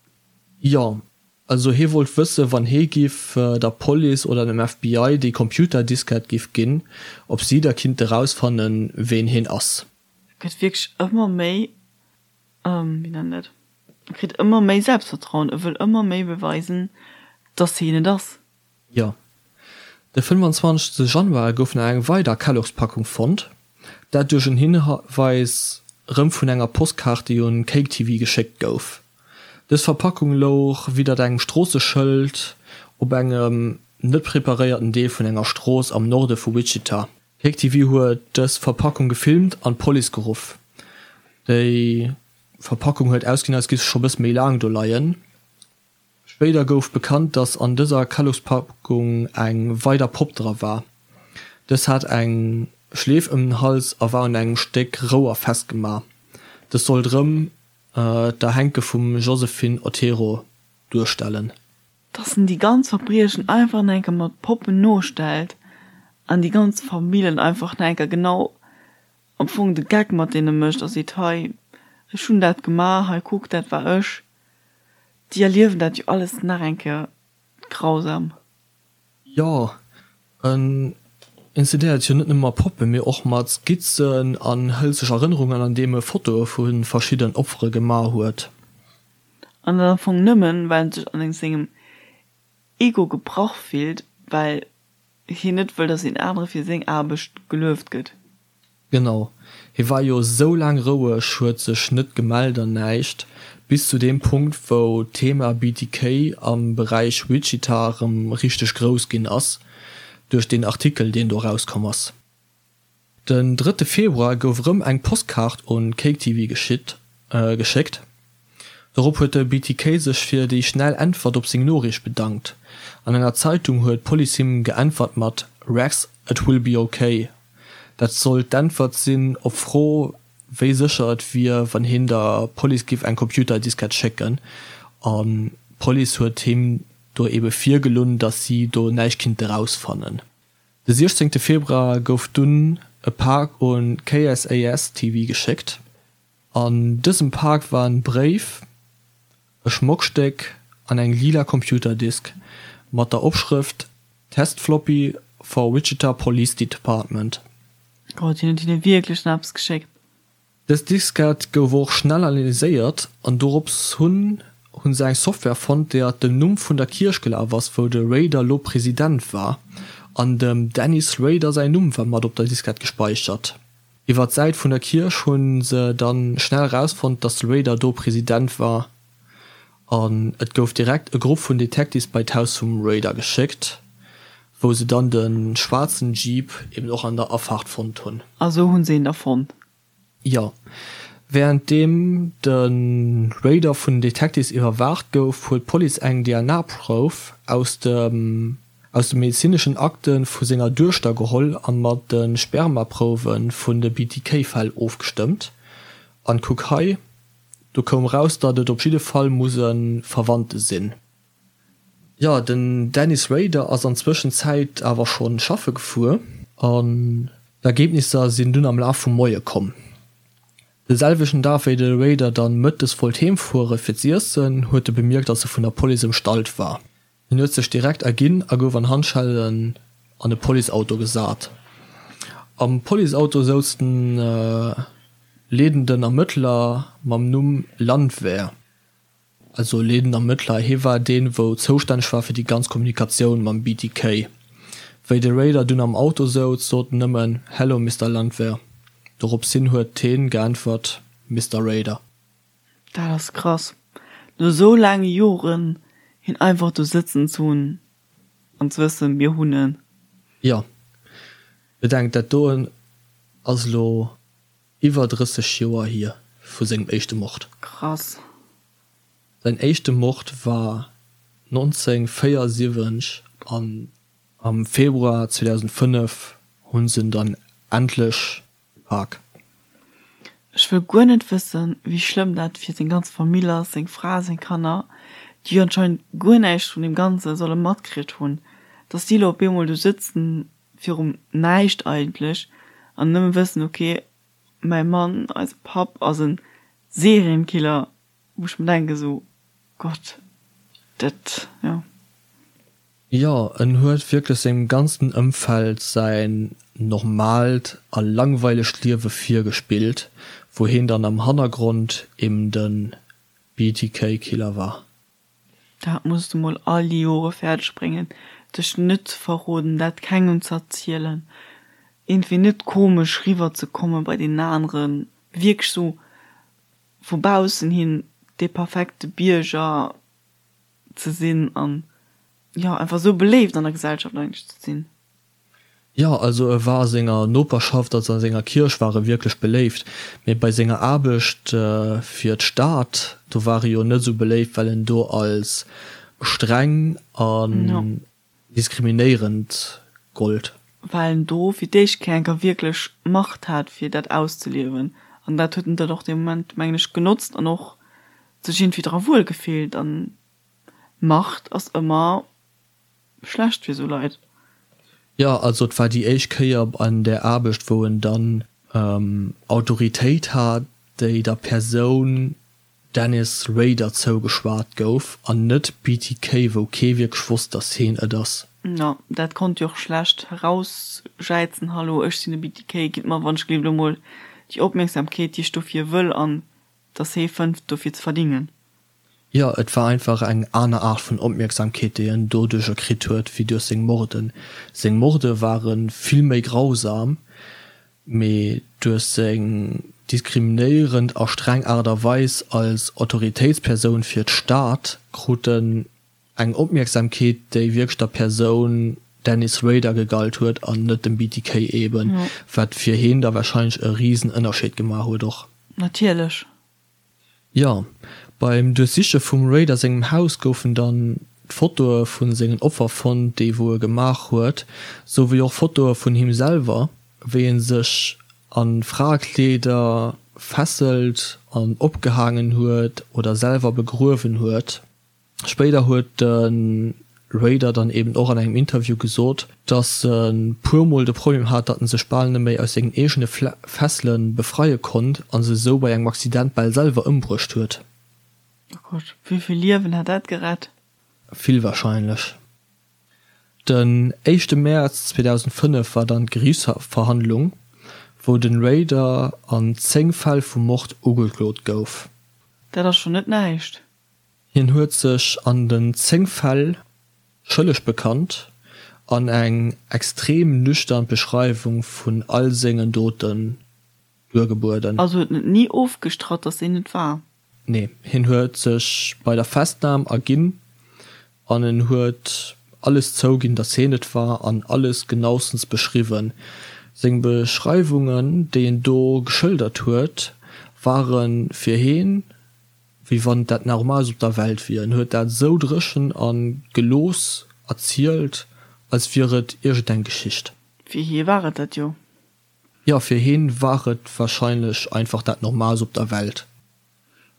Jo, also hie wollt wëssen, wann hie giff der Police oder dem FBI déi Computerdiskett giff ginn, ob si da kinnte rausfannen, ween hien ass. E gëtt wierklech ëmmer méi, wéi nennt een dat, e kritt ëmmer méi Selbstvertrauen, e wëll ëmmer méi beweisen, dass hien et ass. Jo. De 25 Januar gouf nach eng weider Kellogg's-Packung fonnt, dat duerch en Hinweis rëm vun enger Postkaart, déi un KakeTV geschéckt gouf. Dës Verpackung louch widdert engem Stroosseschëld op engem net preparéierten Deel vun enger Strooss am Norde vu Wichita. KakeTV huet dës Verpackung gefilmt an d'Police geruff. Déi Verpackung huet ausgesinn, als géif se scho bësse méi laang do leien. Spéider gouf bekannt, dass an dëser Kellogg's-Packung eng weider Popp dra war. Dës hat eng Schleef ëm den Hals a war un engem Stéck Rouer festgemaach. Dës sollt rëm d'Erhänke vum Josephine Otero duerstellen. Dass en déi ganz Verbriechen einfach nach enker mat Poppen nostellt an déi ganz Famillen einfach nach enker genau am Fong de Geck mat deene mécht a seet, hei ech hunn dat gemaach, hei kuck dat war ech. Déi erliewen dat jo alles nach eng Kéier grausam. Jo, en inszeniert jo net nëmme mat Poppen, mee och mat Skizzen an hëlt sech Erënnerungen an deem e Fotoe vu verschidden Opfere gemaach huet. An dat am Fong nëmmen, well en sech an sengem Ego gebrach fillt, well hien net wëll, dass een anere fir seng Aarbecht gelueft gëtt. Genau, hie war jo sou laang roueg, huet sech net gemellt an näischt, bis zu deem Punkt wou d'Thema BTK am Beräich Wichita rem richteg grouss ginn ass, duerch deen Artikel deen do rauskomm ass. Den drëtte Februar gouf erëm eng Postkaart un CakeTV geschéckt. Dorop huet de BTK sech fir déi schnell Äntwert op seng Noriicht bedankt. An enger Zeitung huet d'Police him geäntwert mat Rex, it will be ok. Dat sollt d'Äntwert sinn op d'Fro, wéi sécher et wier, wann hien der Police giff eng Computerdiskett schécken. An d'Police huet him do ebe virgelunn, datt si do näischt kinnte rausfannen. De 16 Februar gouf dunn e Pak un KSAS TV geschéckt. An dësem Pak war en Bréif, e Schmockstéck an eng lila Computerdisk mat der Opschrëft Test Floppy for Wichita Police Department. Gott, hien huet hinne wierklech nach eppes geschéckt. Dës Diskett gouf och schnell analyséiert an dorops hunn hu se eng Software fonnt, déi at dem Numm vun der Kierch gelaf ass, wou de Rader lo President war, an dem Dennis Rader säin Numm war mat op der Diskett gespeichert. Iwwer d'Säit vun der Kierch hu se dann schnell rausfonnt, dass de Rader do President war an et gouf direkt e Grupp vun Detectives bei d'Haus vum Rader geschéckt, wou se dann de schwaarzen Jeep eben och an der Afaart fonnt hunn. A sou hunn se een da fonnt? Jo. Wärenddeem de Rader vun den Detectives iwwerwaacht gouf, huet d'Police eng DNA-Prouf aus dem aus de medezineschen Akte vu senger Duechter geholl a mat de Spermaprouwe vun de BTK-Fäll ofgestëmmt. An kuck hei, do koum raus, datt et op jidde Fall muss e Verwandte sinn. Jo, den Dennis Rader ass an Zwëschenzäit awer schonn schaffe gefuer an d'Ergebnisser sinn dunn am Laf vum Moie komm. De selwechten Dag wéi de Rader dann mëttes wollt heem fuere fir z'iessen, huet e bemierkt datt e vun der Police ëmstallt war. Hien huet sech direkt erginn a gouf an Handschellen an e Policeauto gesat. Am Policeauto souz den leedenden Ermëttler mam Numm Landwehr. Also leedenden Ermëttler, hie war deen, wou zoustänneg war fir déi ganz Kommunikatioun mam BTK. Wéi de Rader dunn am Auto souz, sot en nëmmen, Hello, Mister Landwehr. Dorops hin huet heen geäntwert, Mister Rader. Dat ass krass, no sou laange Joren hien einfach do sëtzen ze hunn an ze wëssen, mir hunn en. Jo, bedenkt, dat doen ass elo iwwer 30 Joer hier vu sengem éischte Mord. Krass. Säin éischte Mord war 1974 an am Februar 2005 hu se en dann endlech gepak. Ech wëll guer net wëssen, wéi schlëmm dat fir seng ganz Famill ass, seng Fra, seng Kanner, déi jo anscheinend guer näischt vun deem Ganze solle matkritt hunn, dass si elo op eemol do sëtzen virum Näischt eigentlech an nëmme wëssen, ok, mäi Mann, eise Papp ass e Serienkiller, wou ech mer denken esou, Gott, dat, jo. Jo, en huet wierklech sengem ganzen Ëmfeld säin normaalt a langweilegt Liewe virgespillt, wou heen dann am Hannergrond eben de BTK-Killer war. Dat muss de mol all déi Jore fäerdeg bréngen, dech net ze verroden, dat kengem ze erzielen, iergendwéi net komesch riwwer ze komme bei deenen aneren, wierklech sou vu baussen hin dee perfekte Bierger ze sinn an jo einfach sou beléift an der Gesellschaft eigentlech ze sinn. Jo, also e war a senger Noperschaft, also a senger Kierch war e wierklech beléift, mee bei senger Aarbecht fir d'Stad, do war e jo net esou beléift, well en do als streng an diskriminéierend gollt. Well en do fir d'éischt Kéier enker wierklech Macht hat fir dat auszeliewen an dat huet en dann och dee Moment mengen ech genotzt an och sech iergendwéi dra wuel gefillt an Macht ass ëmmer schlecht fir sou Leit. Jo, also et war déi éischt Kéier an där Aarbecht, wou en dann Autoritéit hat, déi der Persoun Dennis Rader zougeschwat gouf an net BTK, wou kee wierklech wosst, datt heen et ass. Jo, dat konnt jo och schlecht erausjäizen, Hallo, ech sinn de BTK, gitt mer wann ech gleef elo mol déi Opmierksamkeet, déi ech dofir wëll an datt hee fënnt dofir ze verdingen. Jo, et war einfach eng aner Aart vun Opmierksamkeet, déi en doduercher kritt huet, wéi duerch seng Morden. Seng Morde ware vill méi grausam, mee duerch seng diskriminéierend a streng Aart a Weis als Autoritéitspersoun fir d'Stad krut en eng Opmierksamkeet, déi wierklech der Persoun Dennis Rader gegalt huet an net dem BTK eben, wat fir heen da warscheinlech e risen Ënnerscheed gemaach huet och. Natierlech. Jo, beim Duerchsiche vum Rader sengem Haus goufen dann d'Fotoe vu sengen Opfer fonnt, déi wou e gemaach huet, sou wéi och Fotoe vun him selwer, wéi e sech a Fraekleeder fesselt an opgehaangen huet oder selwer begruewen huet. Spéider huet de Rader dann eben och an engem Interview gesot, dass e puer Mol de Problem hat, datt en sech bal net méi aus sengen eegene Fessele befreie konnt a se esou bei engem Accident bal selwer ëmbruecht huet. Oh Gott, wéi vill Liewen hat dat gerett? Vill warscheinlech. Den éischte Mäerz 2005 war dann d'Geriichtsverhandlung, wou de Rader an 10 Fäll vu Mord ugeklot gouf. Dat ass schonn net näischt. Hien huet sech an den 10 Fäll schëlleg bekannt an eng extrem nüchtern Beschreiwung vun all sengen Doten duergebueden. Also huet en et ni ofgestratt, dass hien et war? Nee, hien huet sech bei der Festnam erginn an en huet alles zouginn, dass hien et war an alles genaustens beschriwwen. Seng Beschreiwungen, déi en do geschëldert huet, Ware fir heen wéi wann dat Normaalst op der Welt wier. En huet dat esou dréchen a gelooss erzielt, als wier et iergendeng Geschicht. Fir hie war et dat jo. Jo, fir heen war et warscheinlech einfach dat Normaalst op der Welt.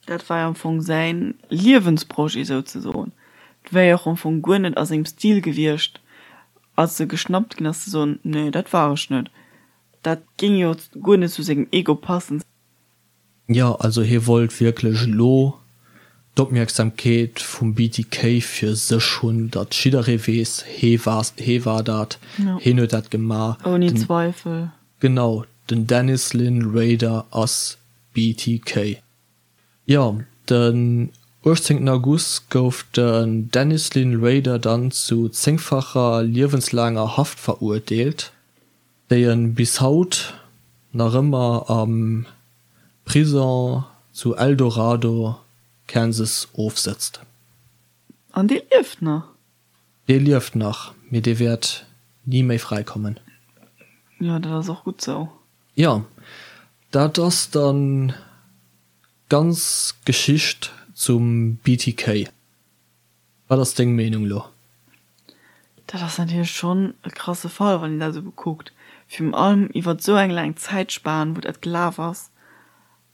Dat war jo am Fong säin Liewensprojet souzesoen. Et wär jo och am Fong guer net a sengem Stil gewiescht, als e geschnappt ginn ass, ze soen, Nee, dat war ech net. Dat géing jo guer net zu sengem Ego passen. Jo, also hie wollt wierklech elo d'Opmierksamkeet vum BTK fir sech hunn, datt jidderee weess, hee war, hee war dat, heen huet dat gemaach. Ouni Zweifel. Genau, den Dennis Lynn Rader ass BTK. Jo, den 18 August gouf den Dennis Lynn Rader dann zu zéngfacher liewenslaanger Haft verurteelt, déi en bis haut nach ëmmer am Prison zu El Dorado, Kansas ofsëtzt. An dee lieft nach? Dee lieft nach, mee dee wäert ni méi fräikommen. Jo, dat ass och gutt sou. Jo, dat ass dann d'ganz Geschicht zum BTK. Wat ass deng Meenung lo? Dat ass natierlech schonn e krasse Fall, wann een dat esou bekuckt. Virun allem iwwert esou eng laang Zäitspan, wou dat gelaf ass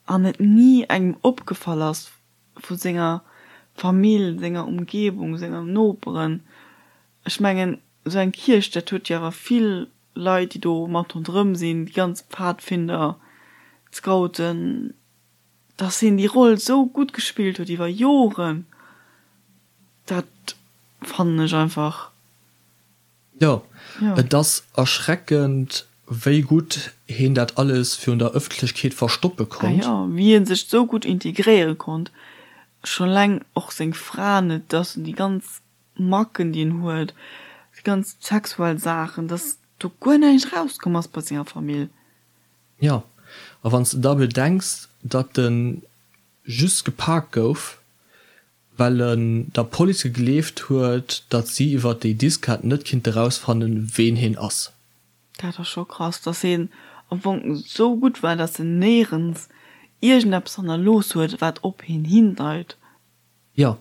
an et ni engem opgefall ass vu senger Famill, senger Umgebung, senger Noperen. Ech mengen, esou eng Kierch, dat huet jo awer vill Leit, déi do mat ronderëm sinn, déi ganz Pfadfinder, d'Scouten, dass hien déi Roll esou gutt gespillt huet iwwer Joren, dat fannen ech einfach. Jo, et ass erschreckend, wéi gutt hien dat alles virun der Ëffentlechkeet verstoppe konnt. Ah jo, wéi hie sech esou gutt integréiere konnt, scho leng och seng Fra net, dass en déi ganz Macken déi en huet, déi ganz sexuell Saachen, dass do guer näischt erauskomm ass bei senger Famill. Jo, a wann s de da bedenks, datt en just gepak gouf, well en der Police gegleeft huet, datt si iwwer déi Diskett net kinnte rausfannen, ween heen ass. Dat ass scho krass, dass heen am Fong esou gutt war, dass en néierens iergendeppes hannerlooss huet, wat op heen hindeit. Jo,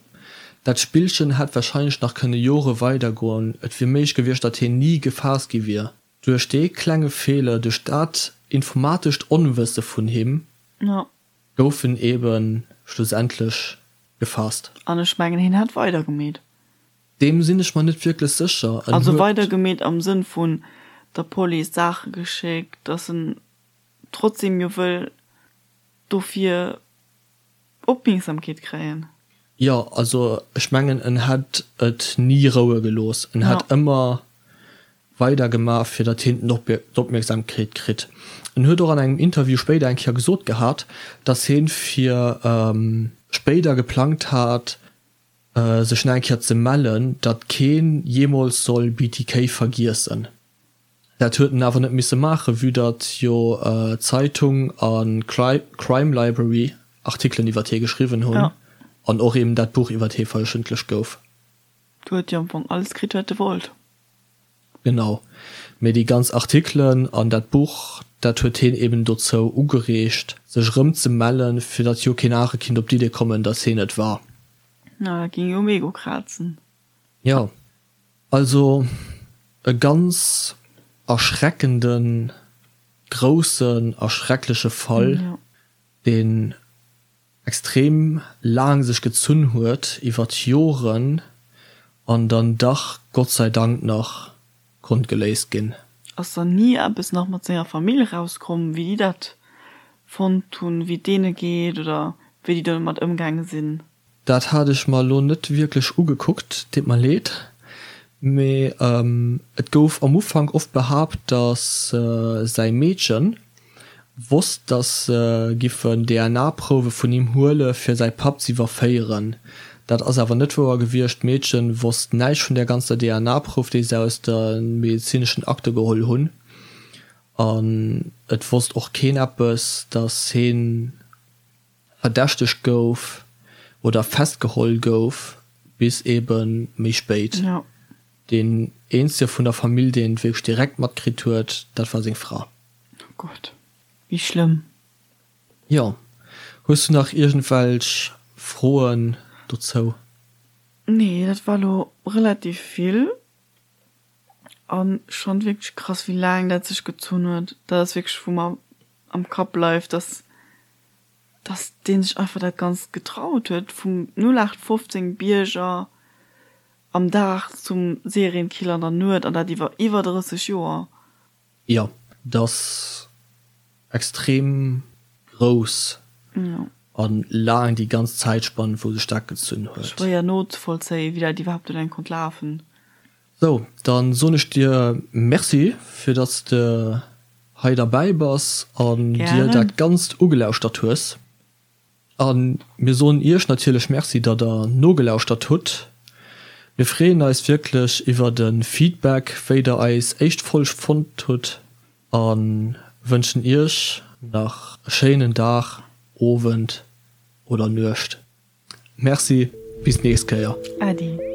dat Spillchen hätt warscheinlech nach kënne Jore weidergoen. Et wier méiglech gewiescht, datt hien ni gefaasst gi wier. Duerch dee klenge Feeler, duerch dat informatescht Onwësse vun him, gouf en ebe schlussendlech gefaasst. An ech mengen, hien hätt weidergemeet. Deem sinn ech mer net wierklech sécher. En Also huet. weidergemeet am Sënn vun der Police Saache geschéckt, datt en trotzdem jo wëll dofir Opmierksamkeet kréien. Jo, also ech mengen en hätt et ni roue gelooss, en hätt ëmmer weider gemaach fir datt hien d'Opmierksamkeet kritt. En huet och an engem Interview spéider eng Kéier gesot gehat, datt hien fir spéider geplangt hat sech nach eng Kéier ze mellen, datt keen jeemools soll BTK vergiessen. Dat huet en awer net misse maachen, vue datt jo Zeitung a Crime Library Artikelen iwwert hie geschriwwen hunn an och eben dat Buch iwwert hie verëffentlecht gouf. Du huet jo am Fong alles kritt, wat e wollt. Genau. Mee déi ganz Artikelen an dat Buch, dat huet hien eben dozou ugereegt, sech erëm ze mellen, fir datt jo keen anere kinnt op d'Idee kommen, datt hien et war. Na, dat géing jo um Ego krazen. Jo. Also e ganz erschreckenden, groussen a schreckleche Fall, deen extrem laang sech gezunn huet, iwwert Joren, an dann dach Gott sei Dank nach konnt geléist ginn. Ass dann ni eppes nach mat senger Famill erauskomm, wéi déi dat fonnt hunn, wéi et deene geet oder wéi déi domat ëmgaange sinn? Dat hat ech mer elo net wierklech ugekuckt, deet mer leed, mee et gouf am Ufank oft behaapt, datt säi Meedchen wosst, datt se giffen DNA-Prouwe vun him huele fir säi Papp z'iwwerféieren. Dat ass awer net wouer gewiescht, d'Meedchen wosst näischt vun där ganzer DNA-Prouf, déi se aus de medezineschen Akte geholl hunn, an et wosst och keen eppes, datt heen verdächtegt gouf oder festgeholl gouf, bis ebe méi spéit. Deen eenzege vun der Famill, deen et wierklech direkt matkritt huet, dat war seng Fra. Oh Gott, wéi schlëmm. Jo. Hues du nach iergendwelch Froen dozou? Nee, dat war lo relativ vill an schon wierklech krass wéi laang dat sech gezunn huet. Dat ass wierklech wou mer am Kapp bleift, dass dass deen sech einfach dat ganzt getraut huet, vum 0815 Bierger am Dag zum Serienkiller an der Nuet an dat iwwer iwwer 30 Joer. Jo, dat ass extrem grouss an laang, déi ganz Zäitspann wou sech dat gezunn huet. Schwéier nozevollzéien, wéi dat iwwerhaapt eleng konnt lafen. Sou, dann soen ech dir Merci fir dass de hei derbäi bass an dir dat Ganzt ugelauschtert hues. A mir soen iech natierlech Merci, datt der nogelauschtert hutt. Mir freeën eis wierklech iwwer e Feedback, wéi der eis éischt Folg fonnt hutt a wënschen iech nach e schéinen Dag, Owend oder Nuecht. Merci, bis d'nächst Kéier. Äddi.